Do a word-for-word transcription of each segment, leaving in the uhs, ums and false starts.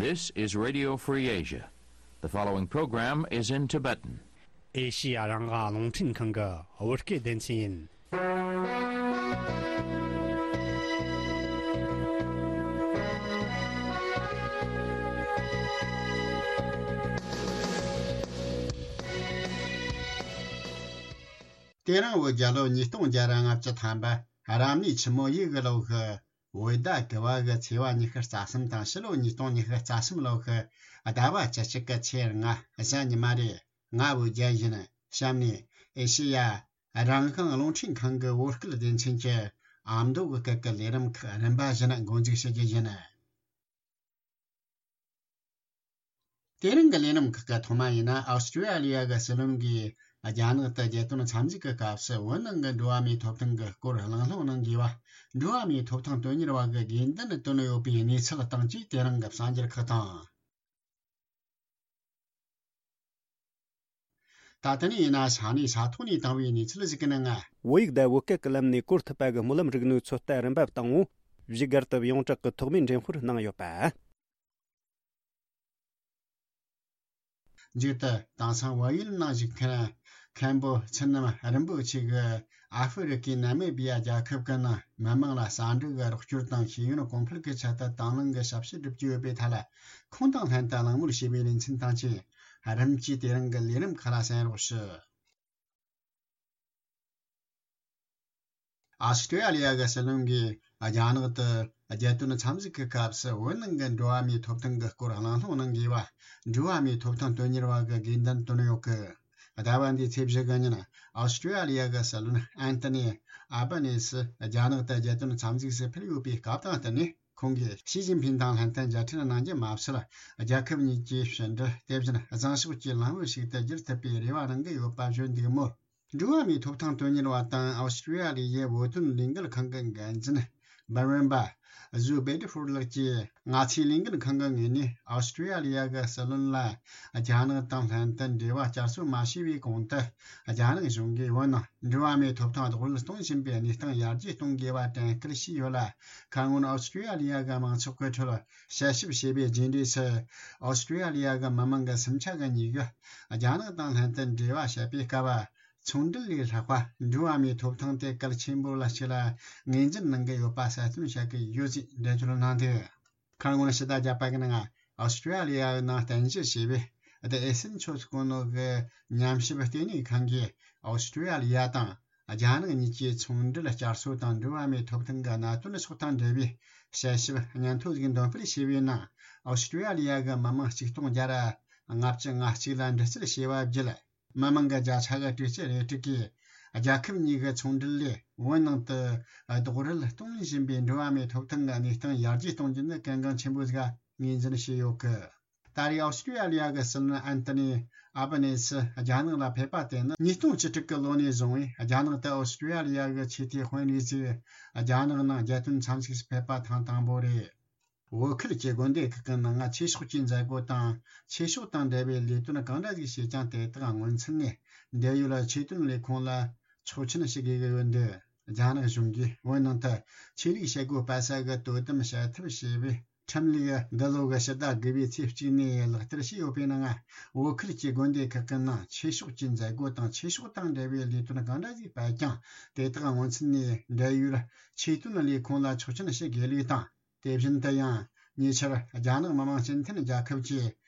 This is Radio Free Asia. The following program is in Tibetan. ཨེ་ཤི་ཡ་རང་དབང་རླུང་འཕྲིན་ཁང་གི་བོད་སྐད་སྡེ་ཚན་ཡིན། དེ་རིང་བོད་རྒྱལ་ལོ་ཉིས་སྟོང་བརྒྱ་ར་ལྔ་བཅུ་ཐམ་པ་རབ་གནས་ཆུ་མོ་ཡོས་གི་ལོ་གི་བོད་ཟླ་དགུ་བ་གི་ཚེས་པ་ཉི་ཤུ་རྩ་གསུམ་དང་ཕྱི་ལོ་ཉིས་སྟོང་ཉི་ཤུ་རྩ་གསུམ་ལོ་གི་ཟླ་བ་བཅུ་གཅིག་གི་ཚེས་ལྔ་གཟའ་ཉི་མ་རེད། ང་བོད་རྒྱལ་ཡིན། གཤམ་ནས་ཨེ་ཤེ་ཡ་རང་དབང་རླུང་འཕྲིན་ཁང་གི་བོད་སྐད་སྡེ་ཚན་གྱི་ཨ་མདོ་གི་སྐད་ཀྱི་ལས་རིམ་ཁག་རིམ་པ་བཞིན་འགོ་འཛུགས་བྱེད་རྒྱུ་ཡིན། དེ་རིང་གི་ལས་རིམ་ཁག་གི་ཐོག་མ་ཡིན་ན། ཨོ་སི་ཀྲི་ཡ་ལི་ཡ་གི་སྲིད་བློན་གྱིས་རྒྱ་ནག་ཏུ་རྒྱལ་དོན་འཚམས་གཟིགས་ཀྱི་སྐབས་སུ་བོད་ནང་གི་འགྲོ་བ་མིའི་ཐོབ་ཐང་གི་སྐོར་གླེང་སློང་གནང་དགོས་པ། འགྲོ་བ་མིའི་ཐོབ་ཐང་དོན་གཉེར་བ་གི་དགོས་འདུན་བཏོན་ཡོད་པའི་གནས་ཚུལ་དང་བཅས་དེ་རིང་གི་གསར་འགྱུར་ཁག་དང་། ད་ལྟ་ནས་ཡིན་ན་ས་གནས་ས་ཐོག་ནས་བཏང་བའི་གནས་ཚུལ་ཞིག་གི་ནང་ང་། བོད་ཡིག་དང་བོད་སྐད་ཀྱི་ལམ་ནས་བཀོལ་ཐུབ་པ་གི་སྨོན་ལམ་རིག་ནུས་ཚོད་ལྟ་རིམ་པ་བཏང་ངོ་། བཞུགས་སྒར་དུ་ཡོངས་གྲགས་ཀྱི་ཐོག་མའི་འགྲེམས་སྤེལ་གནང་ཡོད་པ། མཇུག་ཏུ་དེང་སང་བལ་ཡུལ་ནང་བཞུགས་མཁན་མཁན་པོ་ཚུལ་རྣམ་རིན་པོ་ཆེ་གིས་ཨ་ཧྥེ་རི་ཀའི་ནཱ་མི་བི་ཡ་རྒྱལ་ཁབ་ཀྱི་ནང་མི་མང་ལ་ཟ་འབྲུ་གི་རོགས་སྐྱོར་དང་ཤེས་ཡོན་གོང་འཕེལ་གྱི་ཆེད་དུ་དང་བླངས་ཀྱི་ཞབས་ཕྱི་བསྒྲུབ་ཀྱི་ཡོད་པའི་ཐད་ལ་ཁོང་དང་ལྷན་དུ་གླེང་མོལ་བྱས་པའི་ལེ་ཚན་དང་བཅས་རིམ་གྱིས་དེ་རིང་གི་ལས་རིམ་ཁག་ལ་གསན་རོགས་ཞུ། ཨོ་སི་ཀྲི་ཡ་ལི་ཡ་གི་སྲིད་བློན་གྱིས་རྒྱ་ནག་ཏུ་རྒྱལ་དོན་འཚམས་གཟིགས་ཀྱི་སྐབས་སུ་བོད་ནང་གི་འགྲོ་བ་མིའི་ཐོབ་ཐང་གི་སྐོར་གླེང་སློང་གནང་དགོས་པ། འགྲོ་བ་མིའི་ཐོབ་ཐང་དོན་གཉེར་བ་གི་དགོས་འདུན་བཏོན་ཡོད་གི། ཟླ་བ་འདིའི་ཚེས་བཞི་གི་ཉིན་ཨོ་སི་ཀྲི་ཡ་ལི་ཡ་གི་སྲིད་བློན་ཨན་ཏི་ནི་ཨ་བྷ་ནེ་སི་རྒྱ་ནག་ཏུ་རྒྱལ་དོན་འཚམས་གཟིགས་སུ་ཕེབས་ཡོད་པའི་སྐབས་དང་བསྟུན་ནས། ཁོང་གིས་ཞི་ཅིན་ཕིང་དང་ལྷན་དུ་མཇལ་འཕྲད་གནང་རྒྱུ་མ་ཟད། རྒྱལ་ཁབ་གཉིས་ཀྱི་ཕྱི་འབྲེལ་དེ་བཞིན་བཟང་ཕྱོགས་ཀྱི་ལམ་བུ་ཞིག་ཏུ་བསྒྱུར་ཐུབ་པའི་རེ་བ་གནང་གི་ཡོད་པ་བརྗོད་འདུག་མོད། འགྲོ་བ་མིའི་ཐོབ་ཐང་དོན་གཉེར་བ་དང་ཨོ་སི་ཀྲི་ཡ་ལི་ཡའི་བོད་དོན་ལས་འགུལ་ཁང་གི་འགན་འཛིན་འབར་ཝན་པ་ཟུ་སྦེ་ཏི་ཧྥུར་ལགས་ཀྱིས། ང་ཚོའི་ལས་འགུལ་ཁང་གི་ངོས་ནས་ཨོ་སི་ཀྲི་ཡ་ལི་ཡ་གི་སྲིད་བློན་ལ་རྒྱ་ནག་དང་ལྷན་དུ་འབྲེལ་བ་བསྐྱར་གསོ་མ་བྱས་པའི་གོང་དུ། རྒྱ་ནག་གཞུང་གིས་བོད་ནང་འགྲོ་བ་མིའི་ཐོབ་ཐང་རྡོག་རོལ་གཏོང་བཞིན་པའི་གནས་སྟངས་ཡར་རྒྱས་གཏོང་དགོས་པ་དྲན་སྐུལ་བྱས་ཡོད་ལ། ཁ་སྔོན་ཨོ་སི་ཀྲི་ཡ་ལི་ཡ་གི་མང་ཚོགས་ཀྱི་ཁྲོད་དཔྱད་ཞིབ་བྱས་པའི་རྗེས་འབྲས་སུ། ཨོ་སི་ཀྲི་ཡ་ལི་ཡ་གི་མི་མང་གི་སུམ་ཆ་གི་ཉིས་ཀ་རྒྱ་ནག་དང་ལྷན་དུ་འབྲེལ་བ་བྱེད་པའི་སྐབས། ཚོང་འབྲེལ་ལས་ལྷག་པ་འགྲོ་བ་མིའི་ཐོབ་ཐང་དེ་གལ་ཆེན་པོ་ལ་ཞིག་ལ་ངོས་འཛིན་གནང་གི་ཡོད་པ་གསལ་སྟོན་བྱ་གི་ཡོད་ཅེས་འགྲེལ་བརྗོད་གནང་འདུག་ཁ་སྔོན་ཕྱི་ཟླ་བརྒྱད་པ་གི་ནང་ཨོ་སི་ཀྲི་ཡ་ལི་ཡའི་ནང་རྟེན་གཞི་བྱས་པའི་The Ascensos གོ་ནོ་གི་ཉམས་ཞིབ་ལྟེ་གནས་ཁང་གིས་ཨོ་སི་ཀྲི་ཡ་ལི་ཡ་དང་རྒྱ་ནག་གཉིས་ཀྱི་ཚོང་འབྲེལ་བསྐྱར་གསོ་དང་འགྲོ་བ་མིའི་ཐོབ་ཐང་གི་གནད་དོན་སོགས་དང་འབྲེལ་བའི་དཔྱད་ཞིབ་སྙན་ཐོ་ཞིག་འདོན་སྤེལ་བྱས་པའི་ནང་ཨོ་སི་ཀྲི་ཡ་ལི་ཡ་གི་མི་མང་ཆིག་སྟོང་བརྒྱ་ར་ལྔ་བཅུ་ང་གཅིག་ལ་འདྲི་རྩད་བྱས་པ་བརྒྱུད། མི་མང་གི་བརྒྱ་ཆ་གི་དྲུག་ཅུ་རེ་དྲུག་གིས་རྒྱལ་ཁབ་གཉིས་ཀྱི་ཚོང་འབྲེལ་ལས་བོད་ནང་དུ་རྡོག་རོལ་གཏོང་བཞིན་པའི་འགྲོ་བ་མིའི་ཐོབ་ཐང་གི་གནས་སྟངས་ཡར་རྒྱས་གཏོང་རྒྱུ་ནི་གལ་འགངས་ཆེན་པོ་ཞིག་ངོས་འཛིན་བྱས་ཡོད་གི། ད་རེས་ཨོ་སི་ཀྲི་ཡ་ལི་ཡ་གི་སྲིད་བློན་ཨན་ཏི་ནི་ཨ་བྷ་ནེ་སི་རྒྱ་ནག་ལ་ཕེབས་པ་དེ་ནི་ཉིས་སྟོང་བཅུ་དྲུག་གི་ལོ་ནས་བཟུང་བའི་རྒྱ་ནག་ཏུ་ཨོ་སི་ཀྲི་ཡ་ལི་ཡ་གི་ཆེས་མཐོའི་དཔོན་རིགས་ཚོས་རྒྱ་ནག་ནང་རྒྱལ་དོན་འཚམས་གཟིགས་སུ་ཕེབས་པ་ཐེངས་དང་པོ་རེད། བོད་ཁུལ་གྱི་དགོན་སྡེ་ཁག་གི་ནང་ཆོས་ཕྱོགས་ཀྱི་མཛད་སྒོ་དང་ཆོས་ཕྱོགས་དང་འབྲེལ་བའི་ལས་དོན་གང་འདྲ་ཞིག་བྱས་ཀྱང་། དེ་དག་སྔོན་ཚུད་ནས་འབྲེལ་ཡོད་ཆོས་དོན་ལས་ཁུངས་ལ་ཆོག་མཆན་ཞུ་དགོས་ཀྱི་ཡོད་འདུག་རྒྱ་ནག་གཞུང་གིས་བོད་ནང་དུ་ཆོས་ལུགས་བྱེད་སྒོ་སྤེལ་ས་གི་དོ་དམ་བྱ་ཐབས་ཞེས་པའི་ཁྲིམས་ལུགས་འདི་ལོ་གི་ཕྱི་ཟླ་དགུ་པའི་ཚེས་གཅིག་ནས་ལག་བསྟར་བྱས་ཡོད་པའི་ནང་། བོད་ཁུལ་གྱི་དགོན་སྡེ་ཁག་གི་ནང་ཆོས་ཕྱོགས་ཀྱི་མཛད་སྒོ་དང་ཆོས་ཕྱོགས་དང་འབྲེལ་བའི་ལས་དོན་གང་འདྲ་ཞིག་སྤེལ་ཀྱང་། དེ་དག་སྔོན་ཚུད་ནས་འབྲེལ་ཡོད་ཆོས་དོན་ལས་ཁུངས་ལ་ཆོག་མཆན་ཞུ་དགོས་ལུགས་དང་། དེ་བཞིན་དུ་ཡང་ཉེ་ཆར་རྒྱ་ནག་མི་དམངས་སྤྱི་མཐུན་རྒྱལ་ཁབ་ཀྱི་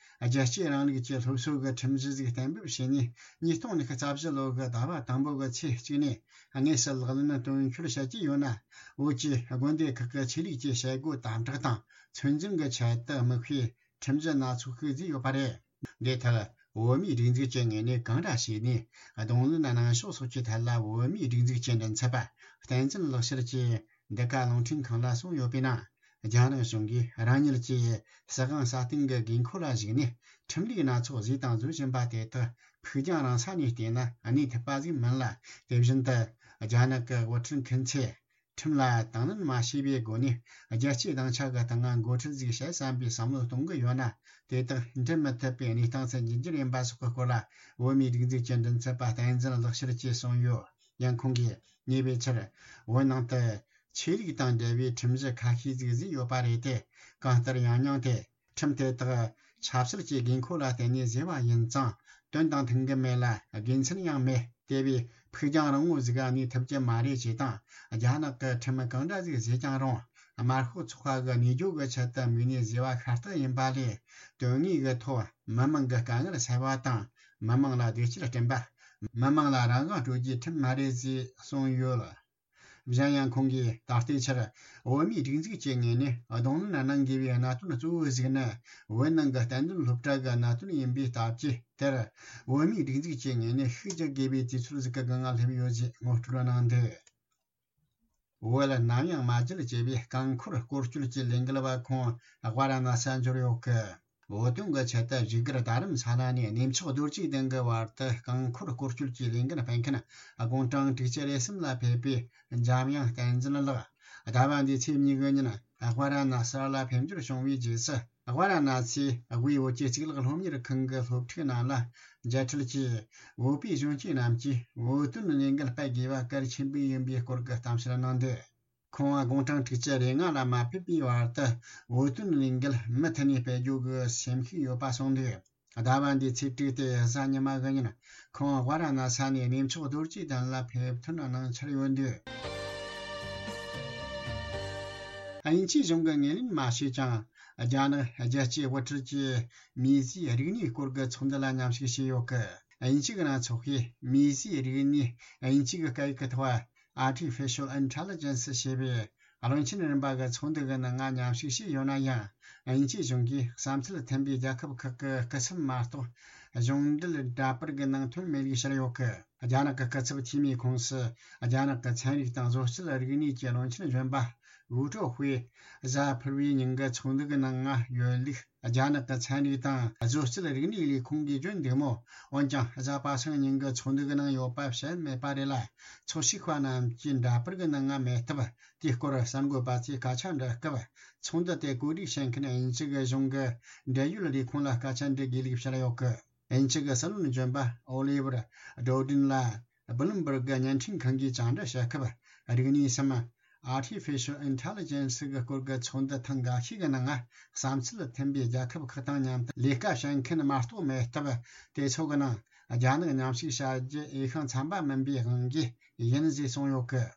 རྒྱལ་གཅེས་རིང་ལུགས་ཀྱི་སློབ་གསོ་གི་ཁྲིམས་གཞི་ཞིག་གཏན་འབེབས་བྱས་ནས། ཉིས་སྟོང་ཉི་ཤུ་རྩ་བཞི་ལོ་གི་ཟླ་བ་དང་པོ་གི་ཚེས་གཅིག་ནས་དངོས་སུ་ལག་ལེན་དོན་འཁྱོལ་བྱེད་ཀྱི་ཡོད་ན། བོད་ཀྱི་དགོན་སྡེ་ཁག་གི་ཆོས་ལུགས་ཀྱི་བྱེད་སྒོ་དམ་དྲག་དང་ཚོད་འཛིན་གྱི་ཆེད་དུ་དམིགས་པའི་ཁྲིམས་གཞི་སྣ་ཚོགས་ཤིག་བཟོས་ཡོད་པ་རེད། འདི་ལྟར་བོད་མིའི་སྒྲིག་འཛུགས་ཀྱི་ངོས་ནས་གང་འདྲ་བྱས་ནས་གདོང་ལེན་གནང་ཕྱོགས་སོགས་ཀྱི་ཐད་ལ། བོད་མིའི་སྒྲིག་འཛུགས་ཀྱི་མགྲིན་ཚབ་པ་བསྟན་འཛིན་ལེགས་བཤད་ཀྱིས་འདི་ག་རླུང་འཕྲིན་ཁང་ལ་གསུངས་ཡོད་པའི་ནང་། རྒྱ་ནག་གཞུང་གིས་རང་ཉིད་ཀྱི་སྲིད་དབང་སྲ་བརྟན་གྱི་དགོས་མཁོ་ལ་གཞིགས་ནས། ཁྲིམས་ལུགས་སྣ་ཚོགས་བཟོས་དང་བཟོ་བཞིན་པ་དེ་དག་ཕུགས་རྒྱང་རིང་ས་ནས་བལྟས་ན་གནས་ཐུབ་པ་ཞིག་མིན་ལ། དེ་བཞིན་དུ་རྒྱ་ནག་གི་དབུ་ཁྲིད་མཁན་ཚོས་ཁྲིམས་ལ་དང་ལེན་མ་བྱས་པའི་སྒོ་ནས། རྒྱལ་གཅེས་སྡིངས་ཆ་གི་སྟེང་ང་འགོ་ཁྲིད་ཞིག་བྱེད་བསམ་པའི་བསམ་བློ་གཏོང་གི་ཡོད་ན། དེ་དག་འགྲུབ་མི་ཐུབ་པའི་གནས་སྟངས་སུ་འགྱུར་རྒྱུ་ཡིན་པ་སོགས་ཀྱི་སྐོར་ལ། བོད་མིའི་སྒྲིག་འཛུགས་ཀྱི་མགྲིན་ཚབ་པ་བསྟན་འཛིན་ལེགས་བཤད་ཀྱིས་གསུངས་ཡོད། ཡང་ཁོང་གིས་ཉེ་བའི་ཆར་བོད་ནང་དུ་ཆོས་ལུགས་དང་འབྲེལ་བའི་ཁྲིམས་གཞི་ཁ་ཤས་ཤིག་བཟོས་ཡོད་པ་རེད་དེ། གང་ལྟར་ཡང་སྙིང་དེ་ ཁྲིམས་དེ་དག་ཆབ་སྲིད་ཀྱི་དགོས་མཁོ་ལ་བརྟེན་ནས་བཟོས་པ་ཡིན་ཙང་དོན་དང་མཐུན་གྱི་མེད་ལ་དགེ་མཚན་ཡང་མེད། དེ་བས་ཕུགས་རྒྱང་རིང་བོ་ཟིག་གནས་ཐུབ་ཀྱི་མ་རེད་ཅེས་དང་། རྒྱ་ནག་གི་ཁྲིམས་གང་འདྲ་ཟིག་བཟོས་ཀྱང་རུང་། དམར་ཤོག་ཚོགས་པ་གི་གནས་སྐྱོང་གི་ཆེད་དུ་དམིགས་ནས་བཟོས་པ་ཤ་སྟག་ཡིན་པ་ལས། དོན་དངོས་ཀྱི་ཐོག་མི་མང་གི་དཀའ་ངལ་སེལ་བ་དང་མི་མང་ལ་བདེ་སྐྱིད་སྐྲུན་པ། མི་མང་ལ་རང་དབང་སྤྲོད་རྒྱུའི་ཁྲིམས་མ་རེད་ཅེས་གསུངས་ཡོད། གཞན་ཡང་ཁོང་གིས་ད་ལྟའི་ཆར་བོད་མིའི་སྒྲིག་འཛུགས་ཀྱི་ངོས་ནས་གདོང་ལེན་གནང་དགོས་པའི་གནད་དོན་གཙོ་བོ་ཞིག་ནི་བོད་ནང་གི་གཏན་དོན་སློབ་གྲྭ་གི་གནད་དོན་ཡིན་པའི་སྟབས་ཀྱིས། དེར་བོད་མིའི་སྒྲིག་འཛུགས་ཀྱི་ངོས་ནས་ཤུགས་རྒྱག་དགོས་པའི་དུས་ཚོད་ཟིག་གི་སྒང་ང་སླེབས་ཡོད་ཅེས་ངོ་སྤྲོད་གནང་འདུག་བོད་ནམ་ཡང་མ་བརྗེད་ཅེས་པའི་རྐང་འཁོར་སྐོར་སྐྱོད་ཀྱི་ལས་འགུལ་བ་ཁོང་ཝཱ་ར་ཎ་སི་འབྱོར་ཡོད་གི། བོད་དོན་གྱི་ཆེད་དུ་བཞུགས་སྒར་རྡ་རམ་ས་ལ་ནས་གནས་མཆོག་རྡོ་རྗེ་གདན་གྱི་བར་དུ་རྐང་འཁོར་སྐོར་སྐྱོད་ཀྱི་ལས་འགུལ་སྤེལ་མཁན་དགུང་གྲངས་དྲུག་ཅུ་རེ་གསུམ་ལ་ཕེབས་པའི་འཇམ་དབྱངས་བསྟན་འཛིན་ལགས། ཟླ་བ་འདིའི་ཚེས་གཉིས་ཀྱི་ཉིན་ཝཱ་ར་ཎ་སི་ལ་ཕེབས་འབྱོར་བྱུང་བའི་རྗེས་སུ། ཝཱ་ར་ཎ་སིའི་དབུས་བོད་ཀྱི་གཙུག་ལག་སློབ་གཉེར་ཁང་གི་སློབ་ཕྲུག་རྣམས་ལ་མཇལ་འཕྲད་ཀྱིས། བོད་པའི་གཞོན་སྐྱེས་རྣམས་ཀྱིས་བོད་དོན་ལས་འགུལ་སྤེལ་དགོས་པ་གལ་ཆེན་པོ་ཡིན་པའི་སྐོར་གྱི་གཏམ་བཤད་གནང་འདུག་ཁོང་དགུང་གྲངས་དྲུག་ཅུ་རེ་ལྔ་ལ་མ་ཕེབས་པའི་བར་དུ་བོད་དོན་ལས་འགུལ་མུ་མཐུད་ནས་སྤེལ་རྒྱུ་གི་སེམས་ཤུགས་ཡོད་པ་གསུངས་འདུག་ཟླ་བ་འདིའི་ཚེས་དྲུག་སྟེ་གཟའ་ཉི་མ་གི་ཉིན་ཁོང་ཝཱ་ར་ཎ་ས་ནས་གནས་མཆོག་རྡོ་རྗེ་གདན་ལ་ཕེབས་ཐོན་གནང་འཆར་ཡོད་འདུག་དབྱིན་ཇིའི་གཞུང་གིས་ངོས་ལེན་མ་བྱས་ཀྱང་། རྒྱ་ནག་རྒྱལ་གཅེས་དབུ་ཁྲིད་ཀྱིས་མིའི་རིག་གནས་སྐོར་གྱི་ཚོགས་འདུ་ལ་མཉམ་ཞུགས་བྱས་ཡོད་སྐད། དབྱིན་ཇི་གི་གནས་ཚུལ་ཁང་གིས་མིའི་རིག་གནས་དབྱིན་ཇི་གི་སྐད་ཡིག་གི་ཐོག Artificial Intelligence ཞེས་པའི་བློན་ཆེན་རིམ་པ་གི་ཚོགས་འདུ་གི་ནང་ང་མཉམ་ཞུགས་བྱས་ཡོད་ན་ཡང་། དབྱིན་ཇིའི་གཞུང་གིས་བསམ་ཚུལ་མཐུན་པའི་རྒྱལ་ཁབ་ཁག་གི་སྐུ་ཚབ་མ་གཏོགས་གཞུང་འབྲེལ་འདྲ་པར་གྱི་ནང་ཐོན་མེད་ལུགས་བཤད་ཡོད་སྐད། རྒྱ་ནག་གི་སྐུ་ཚབ་འཐུས་མིའི་ཁོངས་སུ་རྒྱ་ནག་གི་ཚན་རིག་དང་བཟོ་སྐྲུན་རིག་གནས་ཀྱི་བློན་ཆེན་གཞོན་པ་ཝུའུ་ཀྲོའུ་ཧུའེ་གཟའ་ཕུར་བུའི་ཉིན་གྱི་ཚོགས་འདུ་གི་ནང་ང་ཡོད་ལུགས། རྒྱ་ནག་གི་ཚན་རིག་དང་བཟོ་སྐྲུན་རིག་གནས་ལས་ཁུངས་ཀྱིས་བརྗོད་འདུག་མོད། འོན་ཀྱང་གཟའ་པ་སངས་ཉིན་གྱི་ཚོགས་འདུ་གི་ནང་ཡོད་པ་བཤད་མེད་པ་རེད་ལ། ཚོགས་ཞུགས་པ་རྣམས་ཀྱིས་འདྲ་པར་གྱི་ནང་ང་མེད་སྟབས། དེའི་སྐོར་གསར་འགོད་པ་ཚོས་སྐད་ཆ་འདྲི་སྐབས། ཚོགས་འདུ་དེ་གོ་སྒྲིག་བྱེད་མཁན་དབྱིན་ཇི་གི་གཞུང་གི་འབྲེལ་ཡོད་ལས་ཁུངས་ལ་སྐད་ཆ་འདྲི་དགོས་ལུགས་བཤད་ཡོད་སྐད། དབྱིན་ཇི་གི་སྲིད་བློན་གཞོན་པ་ཨོ་ལི་ཝར་ཌོ་ཌིན་ལ་བྷི་ལུམ་བྷར་གི་བརྙན་འཕྲིན་ཁང་གིས་བཅར་འདྲི་བྱེད་སྐབས། རིག་གནས་སམ་Artificial Intelligence གི་སྐོར་གྱི་ཚོགས་འདུ་ཐེངས་འགའ་ཤས་ཀྱི་ནང་བསམ་ཚུལ་མཐུན་པའི་རྒྱལ་ཁབ་ཁག་དང་མཉམ་དུ་ལས་ཀ་བྱེད་མཁན་མ་གཏོགས་མེད་སྟབས། དེ་ཚོ་གི་ནང་རྒྱ་ནག་མཉམ་ཞུགས་བྱ་རྒྱུ་འོས་ཤིང་འཚམ་པ་མིན་པའི་དབང་གིས་ཡིན་ཞེས་གསུངས་ཡོད་སྐད།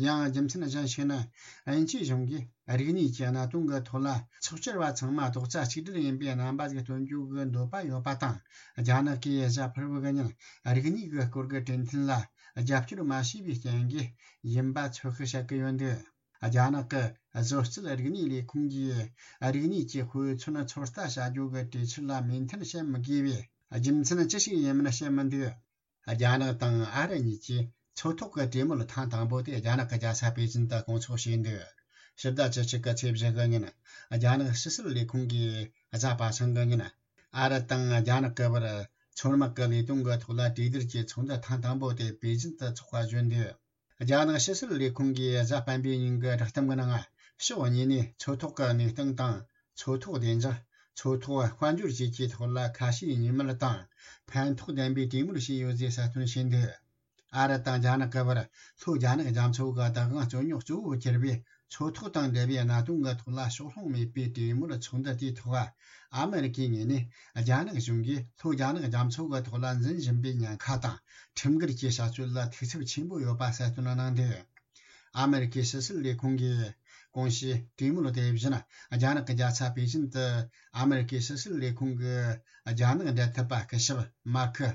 ཡང་རྒྱུ་མཚན་གཞན་ཞིག་ནི། དབྱིན་ཇིའི་གཞུང་གིས་རིག་གནས་ཀྱི་གནད་དོན་གྱི་ཐོག་ལ་ཚོགས་བཅར་བ་ཚང་མ་རྡོག་རྩ་གཅིག་སྒྲིལ་ཡིན་པའི་རྣམ་པ་ཞིག་སྟོན་རྒྱུ་གི་འདོད་པ་ཡོད་པ་དང་། རྒྱ་ནག་གིས་གཟའ་ཕུར་བུ་གི་ཉིན་རིག་གནས་ཀྱི་སྐོར་གྱི་གྲོས་མཐུན་ལ་རྒྱབ་སྐྱོར་མ་བྱས་པའི་རྐྱེན་གྱིས་ཡིན་པ་ཚོད་དཔག་བྱེད་ཀྱི་ཡོད་འདུག་རྒྱ་ནག་གི་བཟོ་སྐྲུན་རིག་གནས་ལས་ཁུངས་ཀྱིས་རིག་གནས་ཀྱི་དཔེ་མཚོན་ཚོད་ལྟ་བྱ་རྒྱུ་གི་གྲོས་ཆོད་ལ་མོས་མཐུན་བྱེད་མི་དགོས་པའི་རྒྱུ་མཚན་ཅི་ཞིག་ཡིན་མིན་བཤད་མི་འདུག་རྒྱ་ནག་དང་ཨ་རི་གཉིས་ཀྱིས་མཚོ་ཐོག་གི་གྲོས་མོལ་ཐེངས་དང་པོ་དེ་རྒྱ་ནག་གི་རྒྱལ་ས་པེ་ཅིན་དུ་སྐོང་ཚོགས་བྱས་འདུག་ཕྱི་ཟླ་བཅུ་གཅིག་གི་ཚེས་བཞི་གི་ཉིན། རྒྱ་ནག་ཕྱི་སྲིད་ལས་ཁུངས་ཀྱིས་གཟའ་པ་སངས་ཀྱི་ཉིན། ཨ་རི་དང་རྒྱ་ནག་གི་བར་མཚོ་དམག་གི་ལས་དོན་གྱི་ཐོག་ལ་གྲོས་བསྡུར་གྱི་ཚོགས་འདུ་ཐེངས་དང་པོ་དེ་པེ་ཅིན་དུ་འཚོགས་པ་བརྗོད་འདུག་རྒྱ་ནག་ཕྱི་སྲིད་ལས་ཁུངས་ཀྱིས་གཟའ་སྤེན་པའི་ཉིན་གྱི་བསྒྲགས་གཏམ་གྱི་ནང་། ཕྱོགས་གཉིས་ནས་མཚོ་ཐོག་གི་གནས་སྟངས་དང་། མཚོ་ཐོག་བདེ་འཇགས། མཚོ་ཐོག་དཔལ་འབྱོར་བཅས་ཀྱི་ཐོག་ལ་ཁ་ཞེ་གཉིས་མེད་དང་ཕན་ཐོགས་ལྡན་པའི་གྲོས་མོལ་བྱས་ཡོད་ཅེས་གསལ་སྟོན་བྱས་འདུག་ཨ་རི་དང་རྒྱ་ནག་གི་བར་ལྷོ་རྒྱ་ནག་རྒྱ་མཚོ་གི་བདག་དབང་རྩོད་རྙོག་གཙོ་བོ་གྱུར་པའི་མཚོ་ཐོག་དང་འབྲེལ་བའི་གནད་དོན་གྱི་ཐོག་ལ་ཕྱོགས་ལྷུང་མེད་པའི་གྲོས་མོལ་ཚོགས་འདུ་དེའི་ཐོག་ཨ་མེ་རི་ཀའི་ངོས་ནས་རྒྱ་ནག་གཞུང་གིས་ལྷོ་རྒྱ་ནག་རྒྱ་མཚོ་གི་ཐོག་ལ་འཛིན་བཞིན་པའི་ཉེན་ཁ་དང་ཁྲིམས་འགལ་གྱི་བྱ་སྤྱོད་ལ་ཐུགས་འཚབ་ཆེན་པོ་ཡོད་པ་གསལ་སྟོན་གནང་འདུག་ཨ་མེ་རི་ཀའི་ཕྱི་སྲིད་ལས་ཁུངས་ཀྱིས་གོང་ཞུས་གྲོས་མོལ་དེ་བཞིན་རྒྱ་ནག་གི་རྒྱལ་ས་པེ་ཅིན་དུ་ཨ་མེ་རི་ཀའི་ཕྱི་སྲིད་ལས་ཁུངས་ཀྱི་རྒྱ་ནག་འབྲེལ་མཐུད་པ་སྐུ་ཞབས་མར་ཁུ་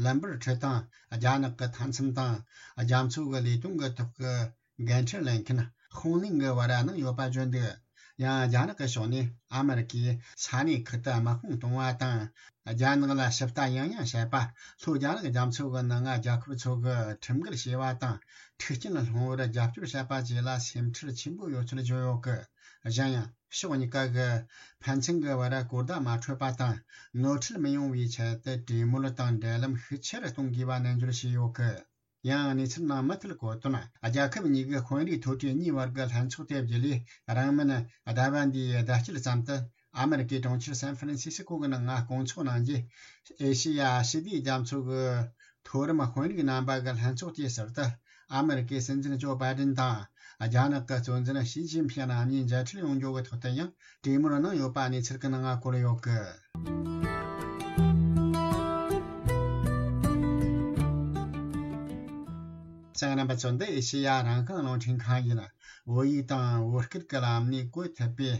ལམ་བར་ཁྲི་དང་རྒྱ་ནག་གི་མཐའ་མཚམས་དང་རྒྱ་མཚོ་གི་ལས་དོན་གྱི་ཐོག་གི་འགན་འཁྲི་ལེན་མཁན་ཧོང་ལིང་གི་བར་གནང་ཡོད་པ་བརྗོད་འདུག་ཡང་རྒྱ་ནག་གི་ཕྱོགས་ནས་ཨ་མེ་རི་ཀས་ས་གནས་ཁག་ཏུ་དམག་དཔུང་གཏོང་བ་དང་། རྒྱ་ནག་ལ་ཞིབ་ལྟ་ཡང་ཡང་བྱེད་པ། ལྷོ་རྒྱ་ནག་རྒྱ་མཚོ་གི་ནང་ང་རྒྱལ་ཁབ་ཚོ་གིས་ཁྲིམས་འགལ་བྱས་པ་དང་། མཐུན་རྐྱེན་སློང་བར་རྒྱབ་སྐྱོར་བྱས་པ་བཅས་ལ་སེམས་ཁྲལ་ཆེན་པོ་ཡོད་ཚུལ་བརྗོད་ཡོད་སྐད། གཞན་ཡང་ཕྱོགས་གཉིས་ཀ་གིས་ཕན་ཚུན་གྱི་བར་གོ་བརྡ་མ་འཕྲོད་པ་དང་། ནོར་འཁྲུལ་མི་ཡོང་བའི་ཆེད་དུ་གྲོས་མོལ་དང་འབྲེལ་ལམ་ཤུགས་ཆེ་རུ་གཏོང་དགོས་པ་ནན་བརྗོད་བྱས་ཡོད་སྐད། ཡང་གནས་ཚུལ་ནང་མུ་མཐུད་གོ་དོན། རྒྱལ་ཁབ་གཉིས་ཀའི་དཔོན་རིགས་མཐོ་གྲས་གཉིས་བར་གྱི་ལྷན་ཚོགས་དེ་བརྒྱུད་ལས། རིང་མིན་ཟླ་བ་འདིའི་ཟླ་དཀྱིལ་ཙམ་དུ་ཨ་མེ་རི་ཀའི་གྲོང་ཁྱེར་སན་ཧྥ་རན་སི་སི་ཀོ་གི་ནང་ང་སྐོང་ཚོགས་གནང་རྗེས། ཨེ་ཤེ་ཡ་ཞི་བདེའི་རྒྱ་མཚོ་གི་མཐོ་རིམ་དཔོན་རིགས་རྣམ་པ་གི་ལྷན་ཚོགས་དེའི་ཟུར་དུ། ཨ་མི་རི་ཀའི་སྲིད་འཛིན་ཇོ་བྷའི་ཏིན་དང་། རྒྱ་ནག་གི་གཙོ་འཛིན་ཞི་ཅིན་ཕིང་གཉིས་མཇལ་འཕྲད་ཡོང་རྒྱུ་གི་ཐོག་ཏུ་ཡང་གྲོས་མོལ་གནང་ཡོད་པ་གནས་ཚུལ་གྱི་ནང་བཀོད་ཡོད་གི། གསན་མཁན་རྣམ་པ་ཚོ། འདི་ཨེ་ཤེ་ཡ་རང་དབང་རླུང་འཕྲིན་ཁང་ཡིན། བོད་ཡིག་དང་བོད་སྐད་ཀྱི་ལམ་ནས་བཀོད་ཐུབ་པའི་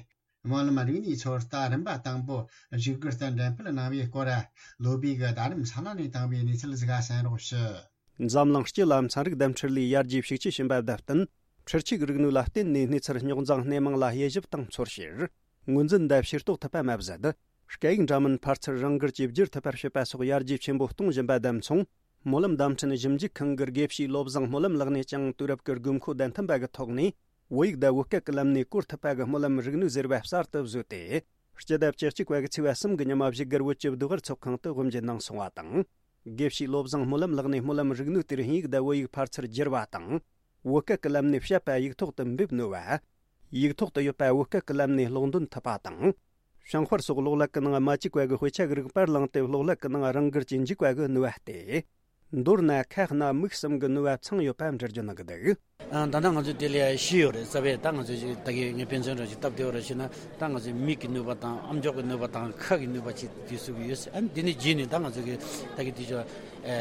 སྨོན་ལམ་རིག་གནས་ཚོད་ལྟ་རིམ་པ་དང་པོ་བཞུགས་སྒར་དུ་འགྲེམས་སྤེལ་གནང་བའི་སྐོར། ལོ་པིག་གི་རྡ་རམ་ས་ལ་ནས་བཏང་བའི་གནས་ཚུལ་ཟིག་གསན་རོགས་ཞུ། འཛམ་གླིང་སྤྱི་ལ་ཚན་རིག་འདེམས་ཁྲིད་ལས་ཡར་རྒྱས་ཤུགས་ཆེ་ཕྱིན་པ་དང་བསྟུན། འཕྲུལ་ཆས་རིག་ནུས་ལ་བརྟེན་ནས་གནས་ཚུལ་རྙོག་འཛིང་སྣེ་མང་ལ་དབྱེ་ཞིབ་དང་ཚོར་བཤེར། ངོས་འཛིན་དང་ཕྱིར་རྟོག་ཐུབ་པ་མ་ཟད། སྐད་ཡིག་འདྲ་མིན་ཕར་ཚུར་རང་འགུལ་གྱིས་བསྒྱུར་ཐུབ་པར་བྱེད་པ་སོགས་ཡར་རྒྱས་ཆེན་པོ་གཏོང་བཞིན་པ་དང་མཚུངས། སྨོན་ལམ་བརྡ་འཕྲིན་ཞིབ་འཇུག་ཁང་གི་དགེ་བཤེས་བློ་བཟང་སྨོན་ལམ་ལགས་ནས་ཀྱང་དུས་རབས་ཀྱི་དགོས་མཁོ་དང་མཐུན་པ་གི་ཐོག་ནས། བོད་ཡིག་དང་བོད་སྐད་ཀྱི་ལམ་ནས་བཀོད་ཐུབ་པ་གི་སྨོན་ལམ་རིག་ནུས་ཟེར་བ་གསར་དུ་བཟོས་ཏེ། སྤྱི་ཟླ་བཅུ་གཅིག་པ་གི་ཚེས་པ་གསུམ་གྱི་ཉི་མ་བཞུགས་སྒར་བོད་ཀྱི་ཟློས་གར་ཚོགས་ཁང་དུ་དབུ་འབྱེད་གནང་སོང་བ་དང་། དགེ་བཤེས་བློ་བཟང་སྨོན་ལམ་ལགས་ནས་སྨོན་ལམ་རིག་ནུས་དེར་དབྱིན་ཡིག་དང་བོད་ཡིག་ཕར་ཚུར་བསྒྱུར་བ་དང་། བོད་སྐད་ཀྱི་ལམ་ནས་བཤད་པ་ཡིག་ཐོག་ཏུ་འབེབས་ནུས་པ། ཡིག་ཐོག་ཏུ་ཡོད་པ་བོད་སྐད་ཀྱི་ལམ་ནས་ཀློག་འདོན་ཐུབ་པ་དང་། བྱང་དཔར་སོགས་གློག་ཀླད་ཀྱི་ནང་མ་བཅུག་པ་གི་དཔེ་ཆ་གི་རིགས་པར་བླངས་ཏེ་གློག་ཀླད་ཀྱི་ནང་རང་འགུལ་གྱིས་འཇུག་པ་གི་ནུས་པ་སྟེ། མདོར་ན་ཁ་སྣ་མིག་གསུམ་གྱི་ནུས་པ་ཚང་ཡོད་པ་འགྲེལ་བརྗོད་གནང་གི་འདུག། ཨ། ད་ལྟ་ང་ཚོས་དེ་ལས་ཤེས་ཡོད་རེད། རྩ་བའི་ད་ང་ཚོས་ཅིག་ད་གིན་ངས་དཔེ་མཚོན་འདྲ་ཅིག་བཏབ་བསྡད་ཡོད་རེད་ཅེ་ན། ད་ང་ཚོས་མིག་གི་ནུས་པ་དང་ཨམ་ཅོག་གི་ནུས་པ་དང་ཁ་གི་ནུས་པ་ཅིག་དེ་ཚུགས་ཀྱི་ཡོད། ཨ་ནི་དེ་ནས་རྗེས་ནས་ད་ང་ཚོ་གི་ད་གིན་དེ་ཚོ་ཨ་